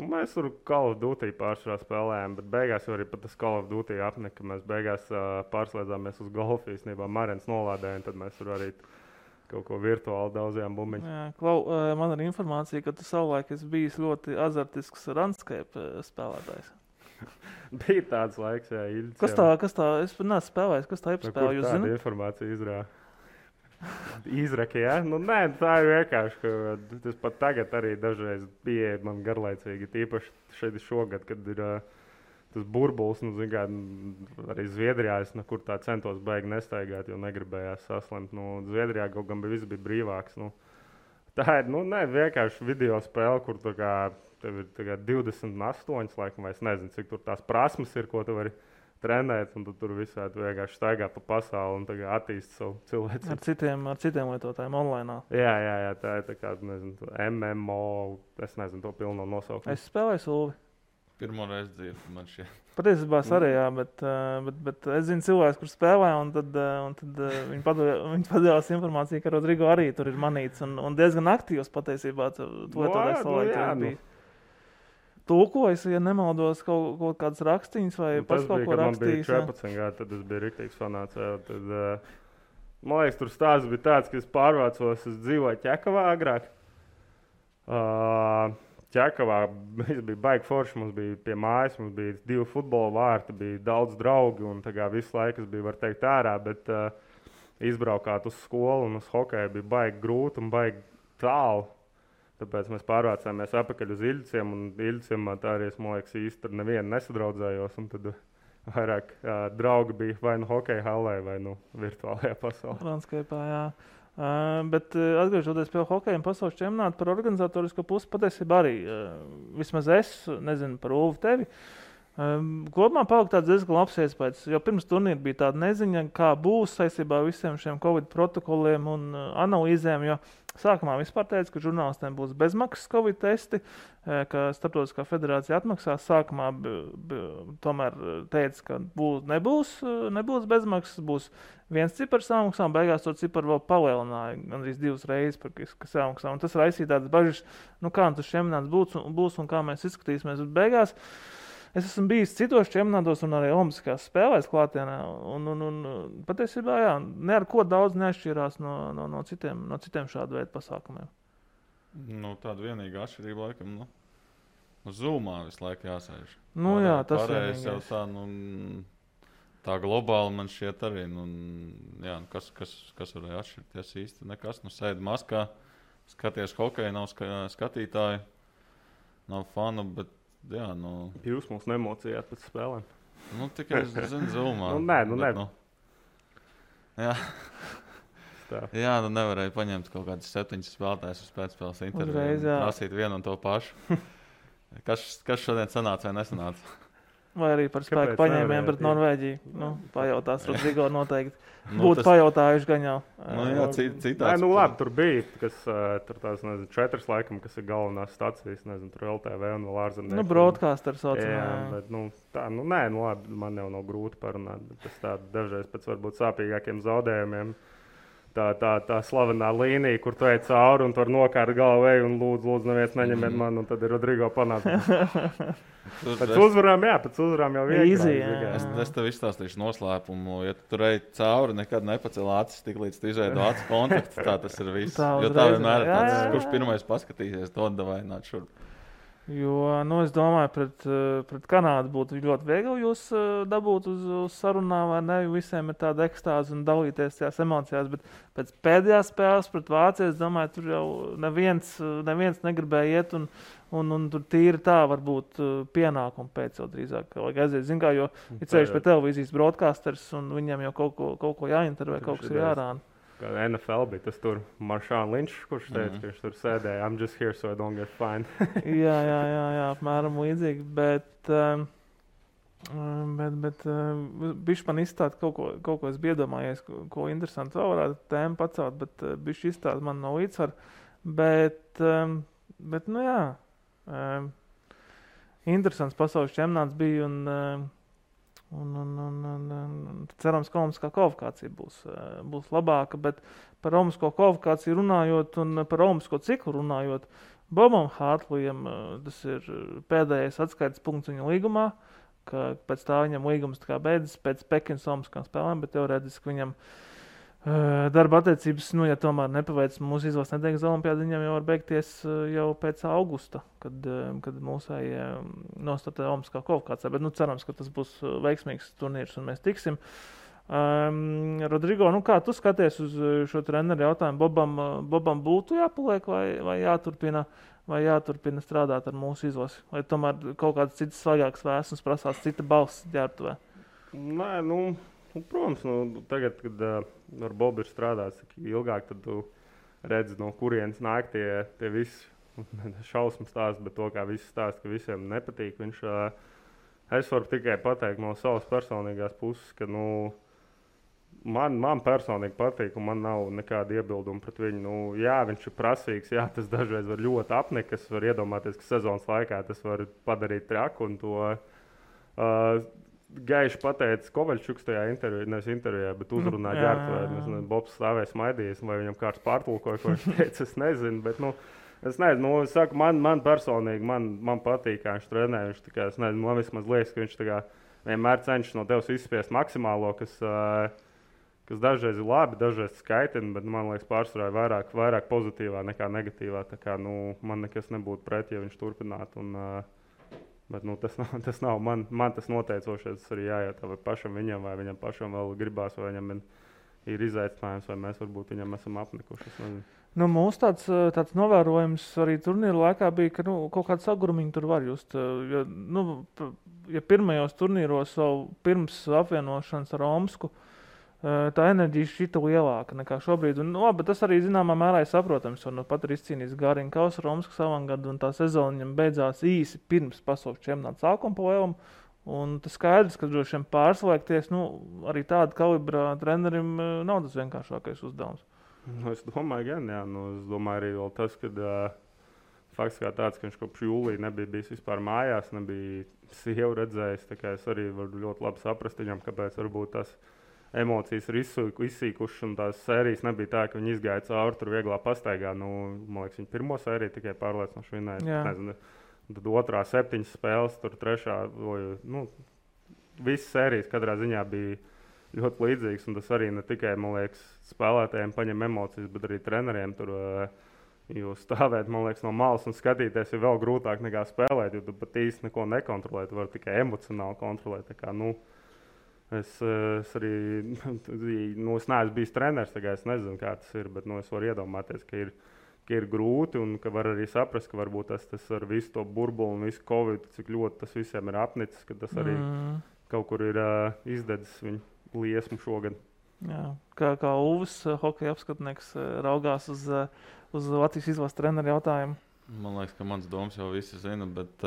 Mēs tur Call of Duty pārsvarā spēlējām, bet beigās jau arī pat tas Call of Duty apnika. Mēs beigās pārslēdzāmies uz golfu īstenībā. Marens nolādēja, un tad mēs tur arī kaut ko virtuāli daudzajām bumbiņu. Man ir informācija, ka tu savulaik esi bijis ļoti azartisks Runescape spēlētājs. Bija tāds laiks, jā. Kas tā? Es neesmu spēlējis. Kas tā ir spēlē? Jūs zināt? Tāda informācija izrāda. Izraka, jā? Nē, tā ir vienkārši, ka tas pat tagad arī dažreiz bija man garlaicīgi. Tīpaši šeit šogad, kad ir tas burbulis, arī Zviedrijā es nekur tā centos baigi nestaigāt, jo negribējās saslimt. Zviedrijā kaut gan viss bija brīvāks. Tā ir, vienkārši video spēle, kur tev ir 28, laikam, vai es nezinu, cik tur tās prasmes ir, ko tu vari trenēt, un tu tur visādi vienkārši staigā pa pasauli un attīst savu cilvēku. Ar citiem lietotājiem online. Jā, tā ir tā kā, MMO, es nezinu to pilno nosaukumu. Es spēlēju Sulvi. Pirmo reizi dzirdu man šie. Patiesībā arī, jā, bet es zinu cilvēkus, kur spēlē, un tad viņi padevās informāciju, ka Rodrigo arī tur ir manīts, un diezgan aktīvs patiesībā. Tulkojas, ja nemaldos, kaut kādas rakstīņas vai pats kaut ko rakstījis. Tas bija, kad man bija 14 gadi, tad es biju riktīgs fanāts. Tad, man liekas, tur stāsts bija tāds, ka es pārvācos, es dzīvoju Ķekavā agrāk. Ķekavā bija baigi forši, mums bija pie mājas, mums bija 2 futbola vārti, bija daudz draugi un visu laiku es biju, var teikt, ārā, bet izbraukāt uz skolu un uz hokeju bija baigi grūti un baigi tālu. Tāpēc mēs pārvācāmies atpakaļ uz Iļciem, un Iļciem tā arī, man liekas, īsti ar nevienu nesadraudzējos, un tad vairāk draugi bija vai hokeja hallē, vai virtuālajā pasaulē. Runescape'ā, jā. Bet atgriežoties pie hokeja un pasaules čempionāta par organizatorisko pusi, patiesībā arī, vismaz es nezinu par Ulvi tevi, kopumā palika tāds diezgan labs iespējas, jo pirms turnīra bija tāda neziņa, kā būs saistībā ar visiem šiem Covid protokoliem un analīzēm, jo sākumā vispār teica, ka žurnālistiem būs bezmaksas Covid testi, ka Starptautiskā federācija atmaksās. Sākumā tomēr teica, ka nebūs bezmaksas, būs viens cipars samaksā, un beigās to ciparu vēl palielināja gandrīz 2 reizes, kas samaksā. Un tas raisīja tādas bažas, kā tas čempionāts būs un kā mēs izskatīsimies. Bet beigās es esmu bijis citos čempionātos un arī olimpiskās spēlēs klātienē. Un patiesībā, jā, ne ar ko daudz neatšķirās no citiem šādu veidu pasākumiem. Nu, tāda vienīga atšķirība, laikam, Zoomā visu laiku jāsēž. Jā, tas vienīgais. Jau tā globāli man šķiet arī, jā, kas varēja atšķirties īsti nekas. Sēdi maskā, skaties hokeju, nav skatītāji, nav fanu, bet jā, Jūs mums nemocījāt pēc spēlēm. Tikai es zinu Zoomā. Nē. Jā. Jā, nevarēja paņemt kaut kādus 7 spēlētājus uz pēcspēles interviju. Prasīt vienu un to pašu. Kas šodien sanāca vai nesanāca? Vai arī par spēku paņēmiem pret Norvēģiju. Pajautās Rodrigo noteikti. Būtu pajautājuši gan jau. Jā, citāds. Labi, tur bija, tur tās, 4 laikam, kas ir galvenās stacijas, tur LTV un vēl ārzemnieki. Broadcaster saucamā. Jā, bet, labi, man jau nav grūti parunāt, bet tas tā dažreiz pēc varbūt sāpīgākiem zaudējumiem. Tā slavenā līnija, kur tu ej cauri un tur nokārt galvu un lūdzu, neviens neņemiet mani, un tad ir Rodrigo panāca. Pēc uzvarām jau vienkārši. Es tev izstāstīšu noslēpumu. Ja tu tur ej cauri, nekad nepacel acis, tik līdz tu izveido acu kontaktu, tā tas ir viss. Jo tā vienmēr ir tāds, kurš pirmais paskatīsies, to davai nāc šurp. Jo, es domāju, pret Kanādu būtu ļoti viegli jūs dabūt uz sarunām, vai ne? Visiem ir tāda ekstāze un dalīties tajās emocijās, bet pēc pēdējās spēles pret Vāciju, es domāju, tur jau neviens negribēja iet un tur tīri tā varbūt pienākumu pēc jau drīzāk. Vajag aiziet, zin kā, jo ir ceļš pie televīzijas broadcasters un viņam jau kaut ko jāintervē, kaut kas ir jārāna. NFL bija tas tur Marshawn Lynch, kurš teica, ka viņš tur sēdēja. I'm just here so I don't get fined. jā, apmēram līdzīgi, bet bišķi man izstāst kaut ko es biju iedomājies, ko interesanti vēl varētu tēmu pacelt, bet bišķi izstāst man no līdzsvaru. Bet jā, interesants pasaules čempionāts bija un cerams, ka olimpiskā kvalifikācija būs labāka, bet par olimpisko kvalifikāciju runājot un par olimpisko ciklu runājot, Bobam Hartleyam tas ir pēdējais atskaites punkts viņa līgumā, ka pēc tā viņam līgums beidzas pēc Pekinas olimpiskām spēlēm, bet teorētiski viņam darba attiecības, ja tomēr nepaveic mūsu izlases nedēļas olimpiāda, viņam jau var beigties jau pēc augusta, kad mūsēji nostartē olimpiskā kvalifikācijā. Bet cerams, ka tas būs veiksmīgs turnīrs un mēs tiksim. Rodrigo, kā tu skaties uz šo treneru jautājumu? Bobam būtu jāpaliek vai jāturpina strādāt ar mūsu izlasi? Vai tomēr kaut kāds cits svaigāks vēsums prasās cita balss ģērbtuvē? Nē, protams, tagad, kad ar Bobu ir strādāts ilgāk, tad tu redzi, no kurienes nāk tie visi šausmu stāsti, bet to, kā visi stāsta, ka visiem nepatīk. Es varu tikai pateikt no savas personīgās puses, ka man personīgi patīk, un man nav nekāda iebilduma pret viņu. Jā, viņš ir prasīgs, jā, tas dažreiz var ļoti apnikt, es varu iedomāties, ka sezonas laikā tas var padarīt traku, un to gaiši pateica Kovaļčuks tajā intervijā, bet uzrunā ģērbtuvē. Bobs stāvēja smaidījis, vai viņam kāds pārtulkoja, ko viņš teica, es nezinu. Bet, es nezinu, es saku, man personīgi, man patīk, kā viņš trenē. Viņš tā kā, es nezinu, man vismaz liekas, ka viņš tā kā vienmēr cenšas no tevis izspiest maksimālo, kas dažreiz ir labi, dažreiz skaitina, bet man liekas pārsvarā vairāk pozitīvā nekā negatīvā. Tā kā, man nekas nebūtu pret, ja viņš turpinātu. Bet tas nav man tas noteicošais. Tas arī jājautā, vai pašam viņam, vai viņam pašam vēl gribās, vai viņam ir izaicinājums, vai mēs varbūt viņam esam apnikuši. Mūsu tāds novērojums arī turnīra laikā bija, ka kaut kāda sagurumiņa tur var just. Ja pirmajos turnīros jau pirms apvienošanas ar Omsku, tā enerģija šķita lielāka nekā šobrīd. Bet tas arī zināmā mērā ir saprotams, jo pat ir izcīnījis Gārina Kausa Omskas avangadu, un tā sezona viņam beidzās īsi pirms pasaules čempionāta sākuma pa lielam. Un tas skaidrs, ka droši vien pārslēgties, arī tāda kalibra trenerim nav tas vienkāršākais uzdevums. Es domāju, gan, jā. Es domāju arī vēl tas, ka fakts kā tāds, ka viņš kopš jūlija nebija bijis vispār mājās, nebija sievu redzējis. Tā kā es arī varu ļoti labi saprast viņam, kāpēc varbūt tas emocijas ir izsīkušas, un tās sērijas nebija tā, ka viņi izgāja cauri tur vieglā pastaigā. Man liekas, viņi pirmo sēriju tikai pārliecinoši vinēja. Nezinu, Tad otrā 7 spēles, tur trešā, visas sērijas katrā ziņā bija ļoti līdzīgas. Un tas arī ne tikai, man liekas, spēlētājiem paņem emocijas, bet arī treneriem tur. Jo stāvēt, man liekas, no malas un skatīties ir vēl grūtāk nekā spēlēt, jo tu pat īsti neko nekontrolē, tu vari tikai emocionāli kontrolēt. Tā kā, es arī, es neesmu bijis treneris, tā kā es nezinu, kā tas ir, bet es varu iedomāties, ka ir grūti un ka var arī saprast, ka varbūt tas ar visu to burbuli un visu Covid, cik ļoti tas visiem ir apnicis, ka tas arī kaut kur ir izdedzis viņu liesmu šogad. Jā, kā Uvis, hokeja apskatnieks, raugās uz Latvijas izlases treneru jautājumu? Man liekas, ka mans domas jau visi zina, bet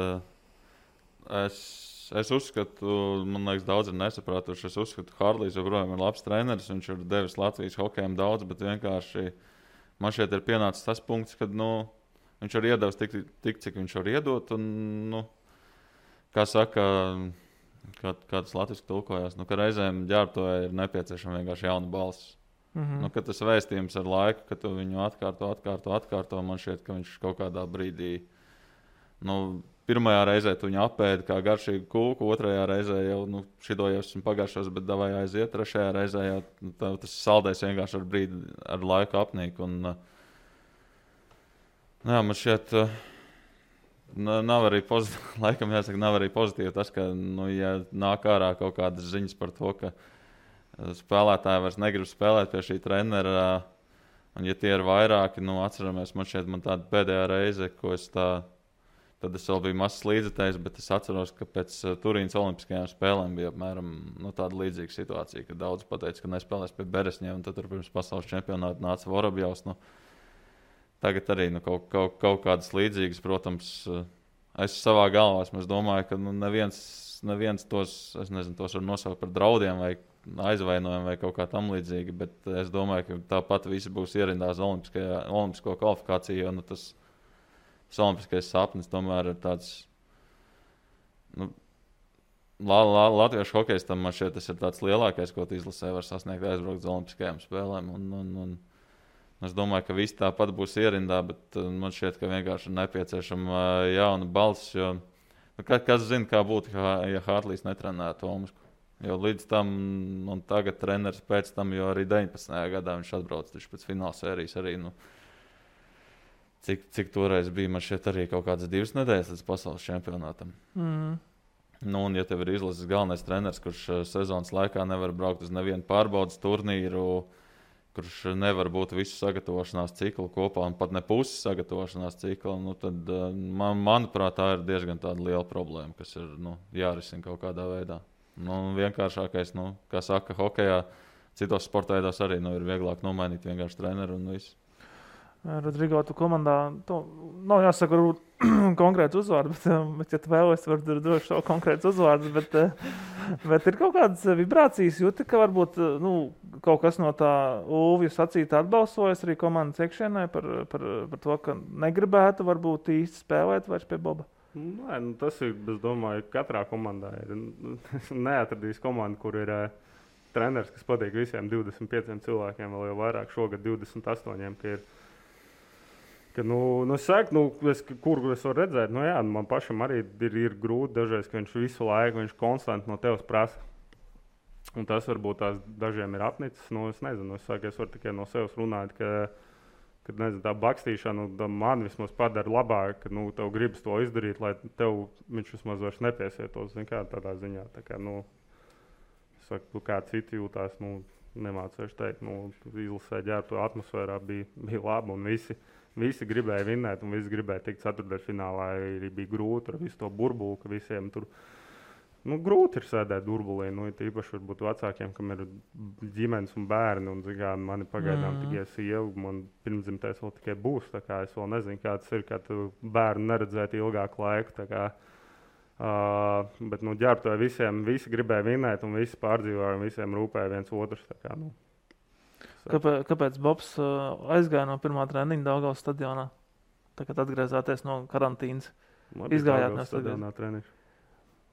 es uzskatu, man liekas, daudz ir nesapratuši. Es uzskatu, ka Hārlijs joprojām ir labs treneris, viņš ir devis Latvijas hokejam daudz, bet vienkārši man šeit ir pienācis tas punkts, kad viņš ir iedevis tik, cik viņš var iedot. Un, kā saka, kā tas latviski tulkojās, ka reizēm ģērbtuvē ir nepieciešama vienkārši jauna balss. Kad tas vēstījums ar laiku, ka tu viņu atkārto, man šķiet, ka viņš kaut kādā brīdī, pirmajā reizē tu viņu apēdi kā garšīgu kūku, otrajā reizē jau, šito jau esmu pagājušos, bet davai aiziet, trešajā reizē jau tas saldēs vienkārši ar laiku apnīk. Un, man šķiet, nav arī pozitīvi, laikam jāsaka, nav arī pozitīvi tas, ka, ja nāk ārā kaut kādas ziņas par to, ka spēlētāji vairs negrib spēlēt pie šī trenera, un ja tie ir vairāki, atceramies, man tāda pēdējā reize, ko tad es vēl biju mazs līdzekļs, bet es atceros, ka pēc Turīnas olimpiskajām spēlēm bija apmēram tāda līdzīga situācija, ka daudz pateica, ka nespēlēs pie Beresņiem, un tad tur pirms pasaules čempionāta nāca Vorobjovs. Tagad arī kaut kādas līdzīgas, protams, es savā galvā domāju, ka neviens tos, es nezinu, tos var nosaukt par draudiem vai aizvainojumu vai kaut kā tam līdzīgi, bet es domāju, ka tāpat visi būs ierindās olimpisko kvalifikāciju, jo tas olimpiskais sapnis tomēr ir tāds, latviešu hokejs tam man šķiet, tas ir tāds lielākais, ko izlasē var sasniegt aizbraukt uz olimpiskajām spēlēm, un es domāju, ka visi tāpat būs ierindā, bet man šķiet, ka vienkārši ir nepieciešama jauna balss, jo kas zina, kā būtu, ja Hārlijs netrenētu Omasku. Jo līdz tam, un tagad treneris pēc tam, jo arī 19. gadā viņš atbrauc pēc fināla sērijas arī, cik toreiz bija, man šeit arī kaut kādas 2 nedēļas līdz pasaules čempionātam. Un ja tev ir izlases galvenais treneris, kurš sezonas laikā nevar braukt uz nevienu pārbaudas turnīru, kurš nevar būt visu sagatavošanās ciklu kopā un pat ne pusi sagatavošanās cikla, tad, manuprāt, tā ir diezgan tāda liela problēma, kas ir jārisina kaut kādā veidā. Vienkāršākais, kā saka, hokejā, citos sporta veidos arī ir vieglāk nomainīt vienkārši treneru un visu. Rodrigo, tu komandā, nav jāsaka konkrēts uzvārds, bet ja tu vēlies, var droši savu konkrēts uzvārds, bet ir kaut kādas vibrācijas, jūti, ka varbūt kaut kas no tā Ulvija sacīta atbalsojas arī komandas iekšienē par to, ka negribētu varbūt īsti spēlēt vairs pie Boba. Nē, tas ir, es domāju, katrā komandā ir. Neatradīs komandu, kur ir treneris, kas patīk visiem 25 cilvēkiem, vēl jau vairāk šogad 28, kur es varu redzēt, man pašam arī ir grūti dažreiz, ka viņš visu laiku, viņš konstanti no tevis prasa. Un tas varbūt tās dažiem ir apnicis, es nezinu, es varu tikai no sevis runāt, kad tā bakstīšana man vismaz padara labāk, ka tev gribas to izdarīt, lai tev viņš vismaz vairs nepiesietos, tādā ziņā. Tā kā, es saku, kā citi jūtās, nemācēšu teikt, izlasē ģērbto atmosfērā bija laba un visi gribēja vinnēt un visi gribēja tikt ceturtdaļfinālā, arī bija grūti ar visu to burbuli, ka visiem tur grūti ir sēdēt burbulī, īpaši varbūt vecākiem, kam ir ģimenes un bērni, un mani pagaidām tikai sieva, man pirmdzimtais vēl tikai būs, tā kā es vēl nezinu, kā tas ir, kā tu bērnu neredzēt ilgāku laiku, tā kā, bet ģērbtuvē visi gribēja vinnēt, un visi pārdzīvoja, un visiem rūpēja viens otrs, tā kā, Kāpēc Bobs aizgāja no pirmā treniņa Daugavas stadionā, tagad atgriezāties no karantīnas? Izgājāt no stadionā treniņa.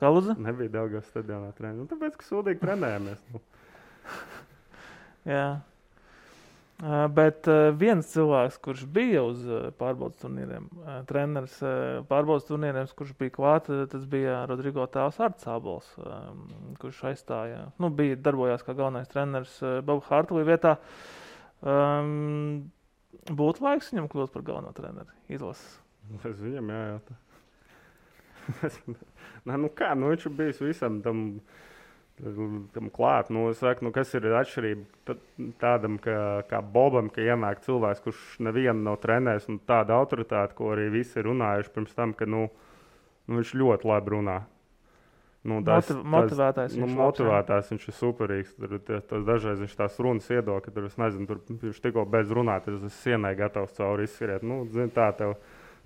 Kā lūdzu? Nebija Daugavas stadionā treniņa. Tāpēc, ka sūdīgi trenējamies. Jā. Bet viens cilvēks, kurš bija uz pārbaudas turnīriem, treneris pārbaudas turnīriem, kurš bija klāt, tas bija Rodrigo tēvs Arts Ābols, kurš aizstāja, bija darbojās kā galvenais treneris Boba Hartlī vietā. Būtu laiks viņam kļūt par galveno treneri izlases? Es viņam jājautā. Viņš ir bijis visam tam klāt. Es saku, kas ir atšķirība tādam kā Bobam, ka ienāk cilvēks, kurš nevienu nav trenējis, un tāda autoritāte, ko arī visi ir runājuši pirms tam, ka viņš ļoti labi runā. Motivētājs. Motivētājs, viņš ir superīgs. Dažreiz viņš tās runas iedod, ka viņš tikko beidz runāt, tad es sienai gatavs cauri izskriet.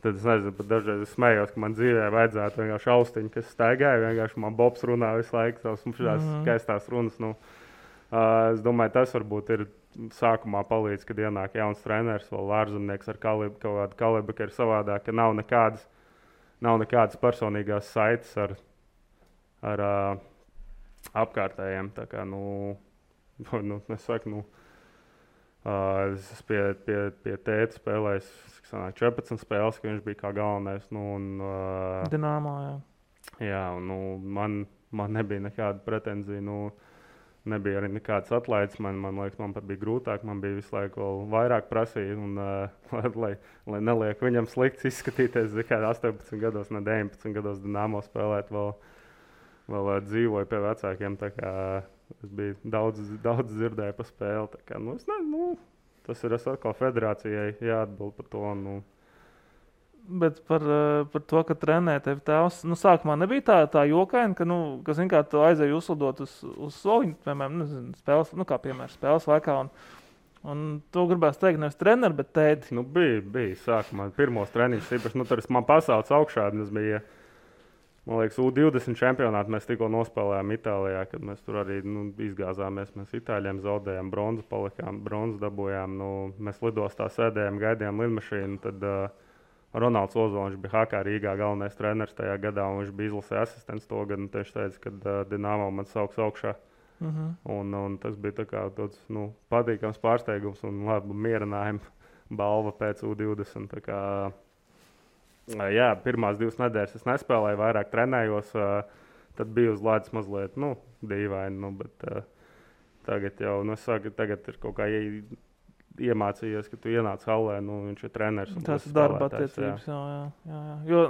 Tad es nezinu, pat dažreiz es smējos, ka man dzīvē vajadzētu vienkārši austiņu, kas staigāja. Vienkārši man Bobs runā visu laiku tās skaistās runas. Es domāju, tas varbūt ir sākumā palīdz, kad ienāk jauns treneris, vēl ārzemnieks ar kaut kādu kalibru, ka ir savādāk, ka nav nekādas personīgās saites ar apkārtējiem. Tā kā, es saku, es pie tēta spēlējis 14 spēles, ka viņš bija kā galvenais. Dinamo, jā. Jā, man nebija nekāda pretenzija. Nebija arī nekādas atlaides. Man liekas, man pat bija grūtāk. Man bija visu laiku vēl vairāk prasīt. Lai neliek viņam slikts izskatīties, kā 18 gados, ne 19 gados Dinamo spēlēt, vēl dzīvoju pie vecākiem. Es biju daudz dzirdēju par spēli. Tā kā, tas ir atkal federācijai jāatbild par to. Bet par to, ka trenē tevi tēvs, sākumā nebija tā jokaina, ka tu aizēji uzlidot uz soliņu, piemēram, spēles, kā piemēram spēles laikā. Un to gribēs teikt nevis treneri, bet tēti. Bija sākumā pirmos treniņus. Īpaši, tur man pasaules augšā, tas bija. Man liekas, U20 čempionātā mēs tikko nospēlējām Itālijā, kad mēs tur arī izgāzāmies. Mēs Itāļiem zaudējām bronzu, palikām bronzu, dabūjām. Mēs lidostā sēdējām, gaidījām lidmašīnu. Tad Ronalds Ozoliņš bija HK Rīgā galvenais treneris tajā gadā, un viņš bija izlasē asistents to gadu. Tieši teica, ka Dinamo man sauks augšā. Un tas bija tāds patīkams pārsteigums un labi mierinājumu balva pēc U20. Jā, pirmās 2 nedēļas es nespēlēju, vairāk trenējos. Tad bija uz ledus mazliet dīvaini. Bet tagad jau tagad ir kaut kā iemācījies, ka tu ienāc hallē, viņš ir treneris. Tas ir darba attiecības. Jā. Jo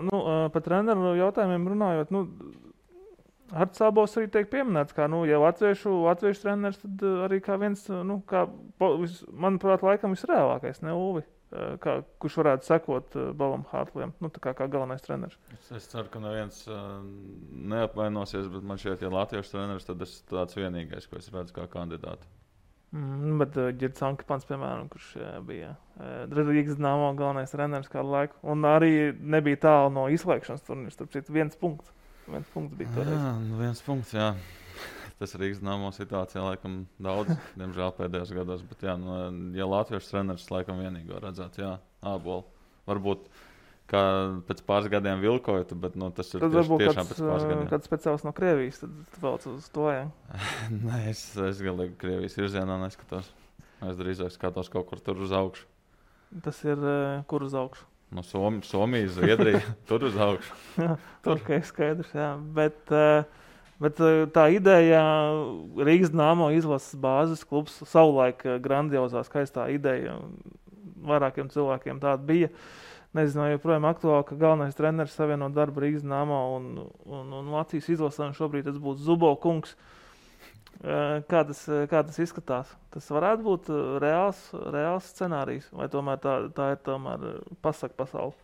par treneru jautājumiem runājot, Arts Ābols arī tiek pieminēts, kā jau latviešu treneris, tad arī kā viens, manuprāt, laikam visreālākais, ne Ulvi? Kurš varētu sekot Bobam Hartlijam, kā galvenais treneris. Es ceru, ka neviens neapvainosies, bet man šķiet, ja latviešu treneris, tad es tāds vienīgais, ko es redzu kā kandidātu. Bet Girds Ankepans, piemēram, kurš bija Rīgas Dinamo galvenais treneris kādu laiku, un arī nebija tālu no izslēgšanas turnīrs, starp citu, 1 punkts. 1 punkts bija toreiz. Jā, 1 punkts, jā. Tas Rīgas Dinamo situācijā laikam daudz, diemžēl pēdējos gados. Bet, ja latviešu treneris laikam vienīgo redzētu, Ābolu. Varbūt kā pēc pāris gadiem vilkojot, bet tas ir tiešām pēc pāris gadiem. Kāds speciāls no Krievijas, tad vēl uz to, jā? Nē, es galīgi Krievijas virzienā neskatos. Es drīzāk skatos kaut kur tur uz augšu. Tas ir kur uz augšu? Somija, Zviedrija, tur uz augšu. Ok, skaidrs, jā. Bet tā ideja, Rīgas Dinamo izlases bāzes klubs, savulaik grandiozā, skaistā ideja, vairākiem cilvēkiem tāda bija. Nezinu, vai joprojām aktuāli, ka galvenais treneris savienot darbu Rīgas Dinamo un Latvijas izlasē, un šobrīd tas būtu Zubo kungs. Kā tas izskatās? Tas varētu būt reāls scenārijs, vai tomēr tā ir tomēr pasaka pasaule?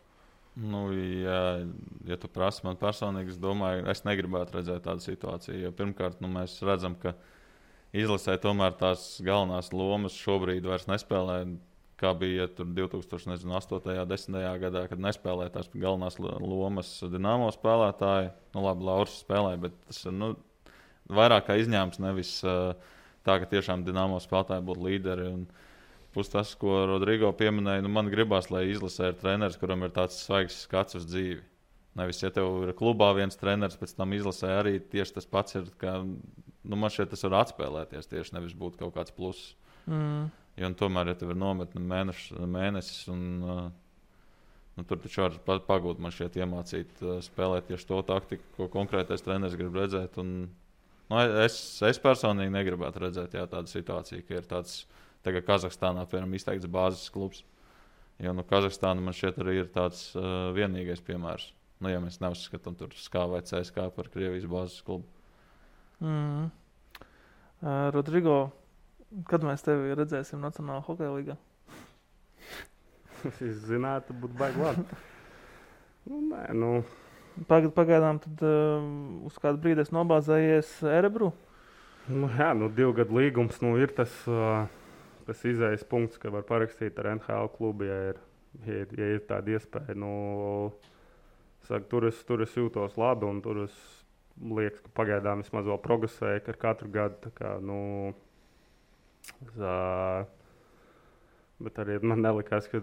Ja tu prasi man personīgi, es domāju, es negribētu redzēt tādu situāciju. Jo pirmkārt, mēs redzam, ka izlasē tomēr tās galvenās lomas šobrīd vairs nespēlē, kā bija tur 2008. 10. gadā, kad nespēlēja tās galvenās lomas Dinamo spēlētāji. Labi, Lauris spēlēja, bet tas ir vairāk kā izņēmums, nevis tā, ka tiešām Dinamo spēlētāji būtu līderi. Plus tas, ko Rodrigo pieminēja, man gribās, lai izlasē ir treneris, kuram ir tāds svaigs skats uz dzīvi. Nevis, ja tev ir klubā viens treneris, pēc tam izlasē arī tieši tas pats ir, ka man šeit tas var atspēlēties tieši, nevis būt kaut kāds pluss. Jo tomēr, ja tev ir nometne mēnesis, un tur taču var pagūt man šķiet iemācīt spēlēt tieši to taktiku, ko konkrētais treneris grib redzēt. Un, es personīgi negribētu redzēt tādu situāciju, ka ir tāds tagad Kazahstānā, piemēram, izteikts bāzes klubs. Jo Kazahstāna man šķiet arī ir tāds vienīgais piemērs. Ja mēs neuzskatām tur SKA vai CSKA par Krievijas bāzes klubu. Rodrigo, kad mēs tevi redzēsim Nacionālā hokeja līgā? Es zinātu, būtu baigi labi. Pagaidām tad uz kādu brīdi esi nobāzējies Erebru? 2 gadu līgums ir tas izējas punkts, ka var parakstīt ar NHL klubu, ja ir tāda iespēja. Tur es jūtos labi, un tur es liekas, ka pagaidām vismaz vēl progresēju ar katru gadu. Bet arī man nelikās, ka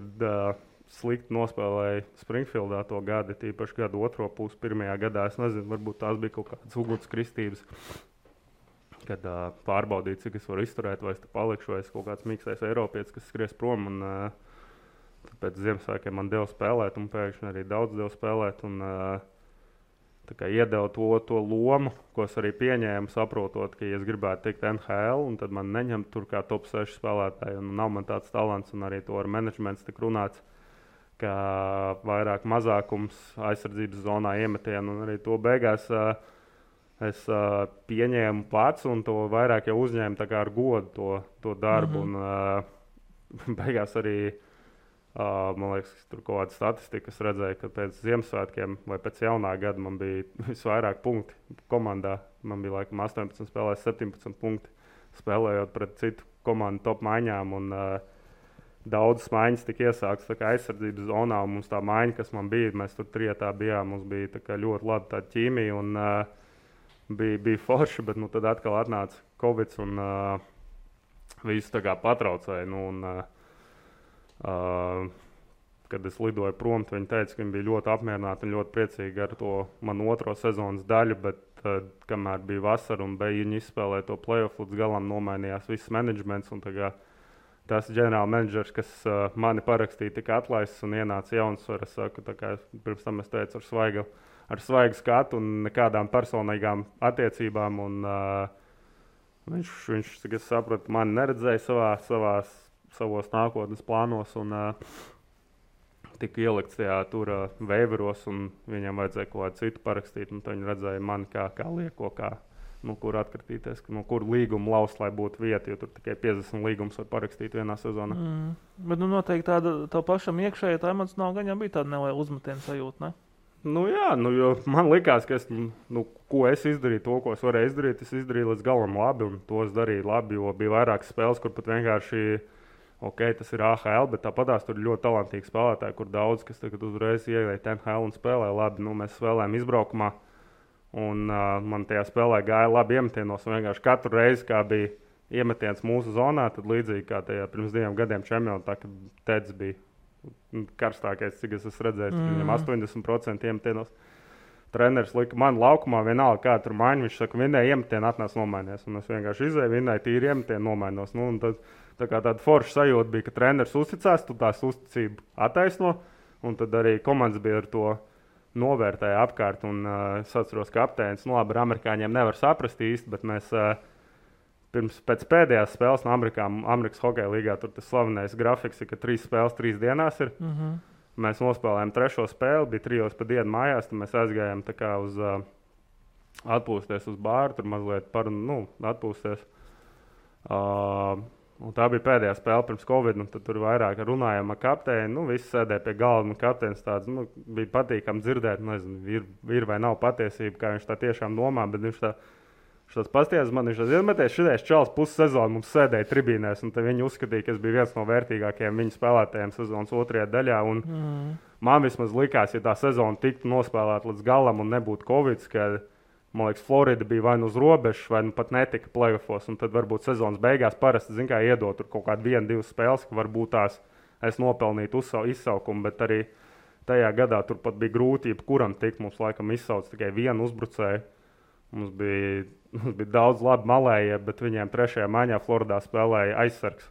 slikti nospēlēja Springfieldā to gadu, tīpaši gadu otro pusi, pirmajā gadā. Es nezinu, varbūt tās bija kaut kādas ugunskristības, kad pārbaudīju, cik es varu izturēt, vai es te palikšu, vai es kaut kāds mīkstais Eiropietis, kas skries prom. Un, pēc Ziemassvētkiem man deva spēlēt, un pēkšņi arī daudz deva spēlēt. Un, iedeva to lomu, ko es arī pieņēmu, saprotot, ka, ja es gribētu tikt NHL, un tad man neņem tur kā top 6 spēlētāji, un nav man tāds talants, un arī to ar menedžmentu tik runāts, ka vairāk mazākums aizsardzības zonā iemetienu, un arī to beigās es pieņēmu pats, un to vairāk jau uzņēmu tā kā ar godu to darbu. Un beigās arī, man liekas, tur kaut kāda statistika, es redzēju, ka pēc Ziemassvētkiem vai pēc jaunā gada man bija visvairāk punkti komandā. Man bija laikam 18 spēlēs 17 punkti, spēlējot pret citu komandu top maiņām, un daudzas maiņas tika iesāktas tā kā aizsardzības zonā, un mums tā maiņa, kas man bija, mēs tur trietā bijām, mums bija tā kā ļoti laba tāda ķīmija, un bija forši, bet tad atkal atnāca Covid, un visu tā kā patraucēja. Kad es lidoju prom, viņi teica, ka viņi bija ļoti apmierināti un ļoti priecīgi ar to manu otro sezonas daļu, bet kamēr bija vasara un viņi izspēlēja to playoff līdz galam, nomainījās viss menedžments, un tas ģenerāla menedžers, kas mani parakstīja, tika atlaists un ienāca jauns, es saku, pirms tam es teicu ar svaigu skatu un nekādām personīgām attiecībām, un viņš, cik es sapratu, mani neredzēja savos nākotnes plānos, un tika ielikts tajā tur veiveros, un viņam vajadzēja kaut kādu citu parakstīt, un viņi redzēja mani kā lieko, kur atkratīties, kur līgumu laust, lai būtu vieta, jo tur tikai 50 līgumus var parakstīt vienā sezonā. Bet noteikti tā pašam iekšēji tā emocionāli gan bija tāda neliela uzmetiena sajūta, ne? Jo man likās, ka ko es izdarīju, to, ko es varēju izdarīt, es izdarīju līdz galam labi, un to es darīju labi, jo bija vairākas spēles, kur pat vienkārši, tas ir AHL, bet tāpatās tur ir ļoti talantīgi spēlētāji, kur daudz, kas tagad uzreiz ieiet NHL un spēlē labi. Mēs spēlējām izbraukumā, un man tajā spēlē gāja labi iemetienos, un vienkārši katru reizi, kā bija iemetiens mūsu zonā, tad līdzīgi kā tajā pirms 2 gadiem čempionātā, kad Teds bija karstākais, cik es esmu redzējis, viņam 80% iemetienos. Treneris lika man laukumā vienalga, kā tur maiņa. Viņš saka, vienai iemetienu atnāc nomainies. Un es vienkārši izēju, vienai tīri iemetienu nomainos. Tāda forša sajūta bija, ka treneris uzticās, tu tās uzticību attaisno. Un tad arī komandas bija ar to novērtēja apkārt. Un es atceros, ka kapteinis, labi, ar amerikāņiem nevar saprast īsti, bet mēs pēc pēdējās spēles no Amerikas hokeja līgā, tur tas slavenais grafiks ir, ka 3 spēles 3 dienās ir. Mēs nospēlējām 3. spēli, bija 3 pa dienu mājās, tad mēs aizgājām tā kā uz atpūsties uz bāru, tur mazliet atpūsties. Un tā bija pēdējā spēle pirms Covid, un tad tur vairāk runājām ar kapteini, visi sēdēja pie galda, un kapteinis tāds, bija patīkami dzirdēt, nezinu, ir vai nav patiesība, kā viņš tā tiešām domā, bet viņš tāds pastiezis man, viņš izmetēs šitais čals pussezonu mums sēdēja tribīnēs, un viņi uzskatīja, ka es biju viens no vērtīgākajiem viņu spēlētājiem sezonas 2. daļā. Un man vismaz likās, ja tā sezona tiktu nospēlēta līdz galam un nebūtu Covid, ka, man liekas, Florida bija vai uz robežas, vai pat netika playoffos, un tad varbūt sezonas beigās parasti, iedot tur kaut kādu 1-2 spēles, ka varbūt tās es nopelnītu izsaukumu, bet arī tajā gadā tur pat bija grūti, jebkuram tikt, mums laikam izsauc tikai vienu uzbrucēju. Mums bija daudz labi malējie, bet viņiem 3. maiņā Floridā spēlēja aizsargs.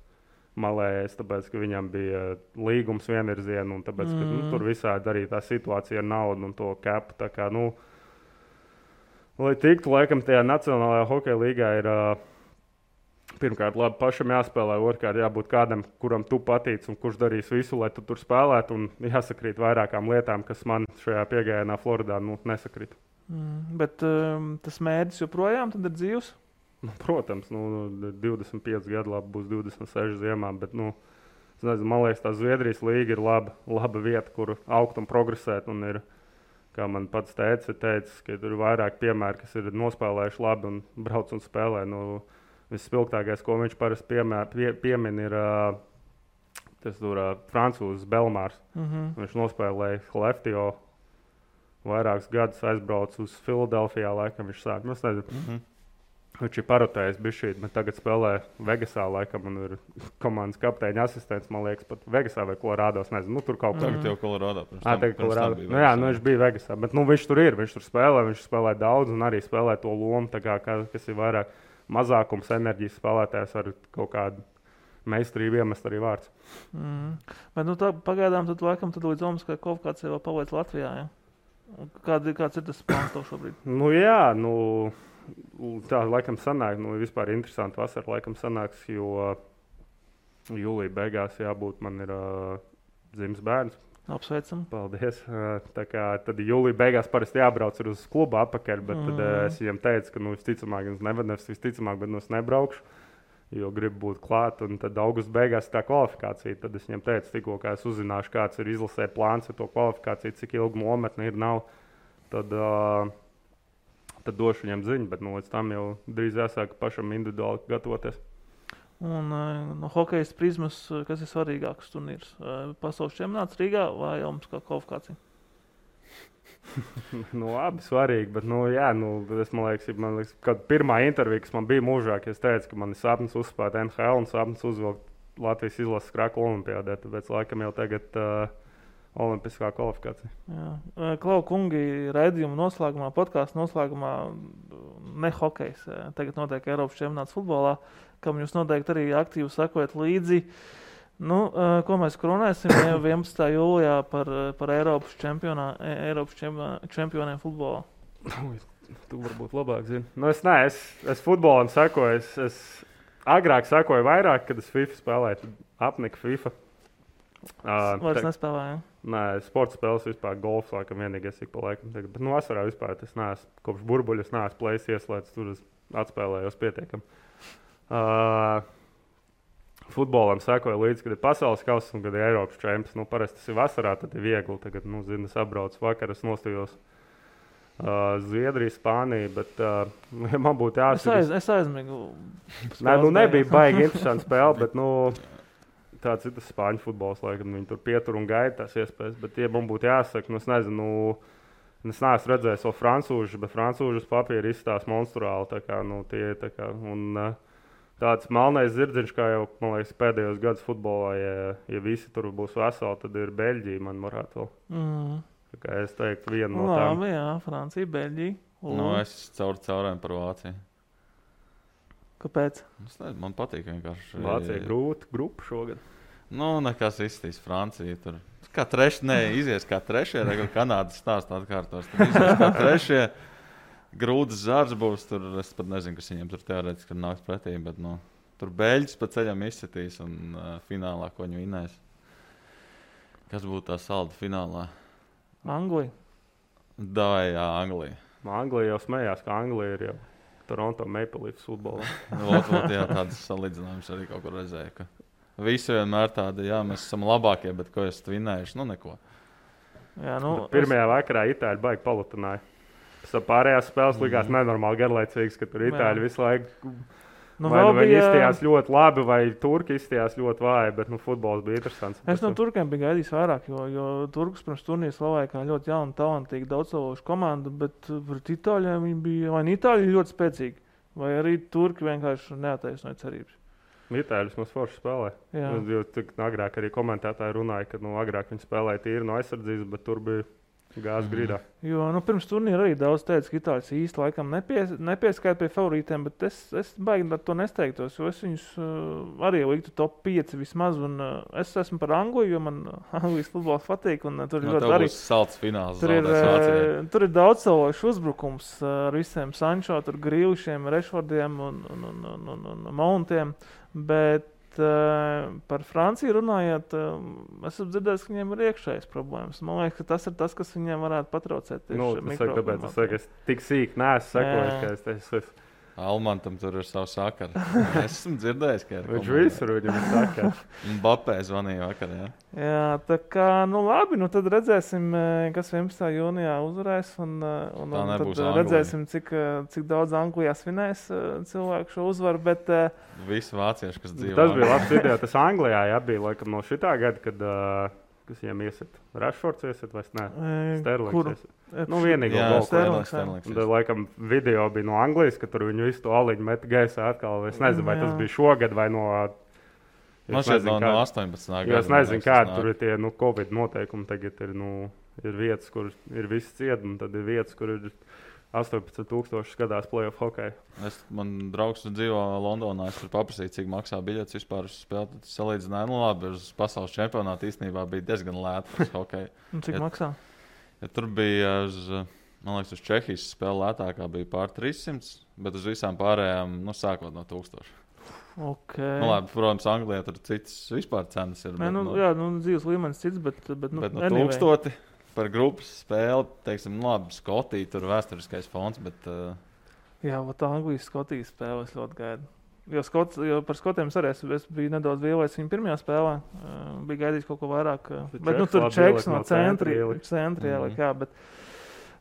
malējais, tāpēc, ka viņam bija līgums vienvirziena, un tāpēc, ka tur visādi arī tā situācija ar naudu un to kepu. Tā kā, lai tiktu, laikam, tajā Nacionālajā hokeja līgā ir pirmkārt labi pašam jāspēlē, otrkārt jābūt kādam, kuram tu patīc un kurš darīs visu, lai tu tur spēlētu, un jāsakrīt vairākām lietām, kas man šajā piegājienā Floridā nesakrīt. Bet tas mērķis joprojām tad ir dzīvs? Protams, 25 gadu labi būs 26 ziemā, bet, man liekas, tā Zviedrijas līga ir laba vieta, kur augt un progresēt, un ir, kā man pats teica, ka tur ir vairāk piemēri, kas ir nospēlējuši labi un brauc un spēlē. Visspilgtākais, ko viņš parasti piemin, ir tas francūzs Belmārs. Viņš nospēlēja Hleftio vairākus gadus, aizbrauca uz Filadelfijā, laikam viņš sāk. Viņš ir parotējis bišķīt, bet tagad spēlē Vegasā, laikam, un ir komandas kapteiņa asistents, man liekas, pat Vegasā vai Kolorādos, nezinu, tur kaut kā. Tagad jau Kolorādo. Viņš bija Vegasā, bet viņš tur ir, viņš tur spēlē daudz un arī spēlē to lomu, tā kā, kas ir vairāk mazākums enerģijas spēlētājs ar kaut kādu meistarību iemest arī vārds. Bet tā pagaidām tad laikam tad līdz Omaskai kvalifikācijai vēl paliec Latvijā, ja? Kāds ir tas plāns tev šobrīd? Tā laikam sanāk, vispār interesanti vasara laikam sanāks, jo jūlija beigās jābūt, man ir dzimis bērns. Apsveicam. Paldies. Tā kā tad jūlija beigās parasti jābrauc uz klubu atpakaļ, bet tad es viņam teicu, ka visticamāk, bet es nebraukšu, jo gribu būt klāt, un tad augusta beigās tā kvalifikācija. Tad es viņam teicu, tikko kā es uzzināšu, kāds ir izlasē plāns ar to kvalifikāciju, cik ilgi nometne ir, nav, tad došu viņam ziņu, bet līdz tam jau drīz jāsāk pašam individuāli gatavoties. Un no hokejas prizmas, kas ir svarīgāks turnīrs? Pasaules čempionāts Rīgā vai Omaskā kvalifikācija? Abi svarīgi, bet man liekas, kad pirmā intervija, kas man bija mūžā, es teicu, ka man ir sapnis uzspēt NHL un sapnis uzvilkt Latvijas izlases krāklu olimpiādē, tāpēc laikam jau tagad olimpiskā kvalifikācija. Jā. Klau kungi, raidījuma noslēgumā, podkāstu noslēgumā ne hokejs. Tagad notiek Eiropas čempionāts futbolā, kam jūs noteikti arī aktīvi sekojat līdzi. Ko mēs kronēsim 11. jūlijā par Eiropas čempioniem futbolā? Tu varbūt labāk zini. Es futbolam sekoju. Es agrāk sekoju vairāk, kad es FIFA spēlēju. Apnika FIFA. Vairs nespēlēju. Nē, sporta spēles vispār, golfs laikam vienīgais ik pa laikam. Bet vasarā vispār es neesmu, kopš burbuļus neesmu plējis ieslēdz, tur es atspēlējos pietiekam. Futbolam sekoju līdzi, kad ir pasaules kauss un kad ir Eiropas čempions. Parasti tas ir vasarā, tad ir viegli. Tagad, es apbraucu vakar, es nostājos Zviedriju, Spāniju, bet man būtu jāsaka. Es aizmigu. Nebija baigi interesanti spēle, bet tāds ir tas spāņu futbols, laikam viņi tur pietur un gaida tās iespējas. Bet, ja man būtu jāsaka, es nezinu, es neesmu redzējis vēl francūžus, bet francūžus papīri izstās monstruāli. Tā kā, tāds melnais zirdziņš, kā jau, man liekas, pēdējos gadus futbolā, ja visi tur būs veseli, tad ir Beļģija, man varētu vēl. Tā kā es teiktu, viena no tām. Labi, jā, Francija, Beļģija. Es caurējām par Vāciju. Kāpēc? Man patīk vienkārši. Vācija grūta grupa šogad. Nekas izstīs Francija. Tur kā izies kā trešie, tagad Kanādas stāsts atkārtos. Tur izies kā trešie. Grūts zars būs. Tur es pat nezinu, kas viņiem tur teorētiski nāks pretī, bet tur Beļģis pa ceļam izsitīs un finālā, ko viņi vinēs. Kas būtu tā salda finālā? Anglija. Jā, Anglija. Anglija jau smējās, ka Anglija ir jau Toronto Maple Leafs futbolā. Jā, tādas salīdzinājumus arī kaut kur redzēju. Ka visi vienmēr tādi, jā, mēs esam labākie, bet ko esat vinējuši? Neko. Jā, pirmajā vakarā Itāļi baigi palutināja. Pārējās spēles likās nenormāli garlaicīgas, ka tur Itāļi visu laiku viņi izstījās ļoti labi, vai turki izstījās ļoti vāji, bet futbols bija interesants. Es no turkiem biju gaidījis vairāk, jo turkus pirms turnīra slavēja kā ļoti jaunu, talantīgu, daudzsološu komandu, bet pret Itāļiem viņi bija, vai Itāļi ļoti spēcīgi, vai arī turki vienkārši neataisnoja cerības. Itāļus mums forši spēlē. Jo agrāk arī komentētāji runāja, ka agrāk viņi spēlēja tīri no aizsardzības, bet tur bija Gāzes grīdā. Jo pirms turnīra arī daudz teica, ka itāļus īsti laikam nepieskaita pie favorītiem, bet es baigi ar to nesteigtos, jo es viņus arī liktu top 5 vismaz, un es esmu par Angliju, jo man Anglijas futbols patīk, un tur ir ļoti arī... salds fināls. Tur ir daudz savāšu uzbrukums ar visiem Sancho, tur Grīlišiem, Rešfordiem un Mountiem, bet par Franciju runājot, esmu dzirdējis, ka viņiem ir iekšējas problēmas. Man liekas, ka tas ir tas, kas viņiem varētu patraucēt. Es tik sīk neesmu sekojis, ka es teicu, Almantam tur ir savu sakaru. Es esmu dzirdējis, ka ir. Viņš visur viņam ir sakaru. Mbappé zvanīja vakar, jā. Jā, tā kā, labi, tad redzēsim, kas 11. jūnijā uzvarēs, un tad redzēsim, cik daudz Anglijā svinēs cilvēku šo uzvaru, bet... Visi vācieši, kas dzīvo. Tas bija labs video, tas Anglijā, bija laikam no šitā gada, kad... kas viņiem iesit? Rashfords iesit vai ne? Sterlings iesit. Vienīgo golku. Sterlings. Laikam video bija no Anglijas, ka tur viņu visu to aliņu met gaisā atkal. Es nezinu, vai tas bija šogad vai no... Man šeit no 18. gada. Es nezinu, kādi tur ir tie Covid noteikumi. Tagad ir vietas, kur ir visi ciet, un tad ir vietas, kur ir 18,000 skatās play-off hokeju. Man draugs dzīvo Londonā, es tur paprasīju, cik maksā biļetes vispār uz spēli. Tad salīdzināju, labi, uz pasaules čempionātu īstenībā bija diezgan lēta uz hokeju. Cik maksā? Ja tur bija, man liekas, uz Čehijas spēle lētākā bija pār 300, bet uz visām pārējām, sākot no 1000. Okay. Labi, protams, Anglijā tur citas vispār cenas ir. Dzīves līmenis cits, bet no 1000. Par grupas spēli, teiksim, labi, Skotija, tur vēsturiskais fons, bet... Jā, Anglijas Skotijas spēle es ļoti gaidu. Jo par Skotiem arī es biju nedaudz vielais viņa pirmajā spēlē. Bija gaidījis kaut ko vairāk. Bet tur čeks no centri ielikt, jā.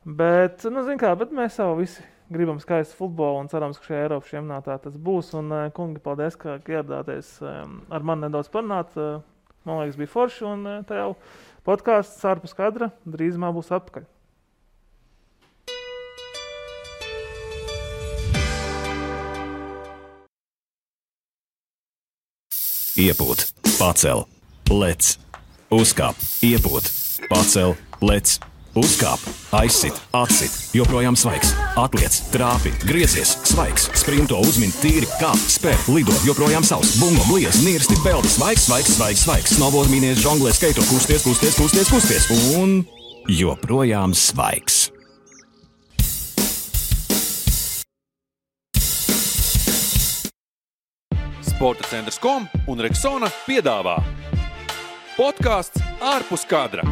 Bet mēs jau visi gribam skaistu futbolu un cerams, ka šajā Eiropas čempionātā tas būs. Un, kungi, paldies, ka ieradāties ar mani nedaudz parunāt. Man liekas, bija forši un tā jau... Podkāsts ārpus kadra drīzumā būs atpakaļ. Iepūt, pacel, lec, uzkāp, iepūt, pacel, lec, uzkāp, aizsit, atsit, joprojām svaigs, atliec, trāpi, griezies, svaigs, sprinto, uzmin, tīri, kāp, spēr, lido, joprojām savs, bungo, bliez, nirsti, peldi, svaigs, snowboard, mīnies, žonglē, skaito, kusties, un joprojām svaigs. Sporta centrs.com un Rexona piedāvā podkāsts ārpus kadra.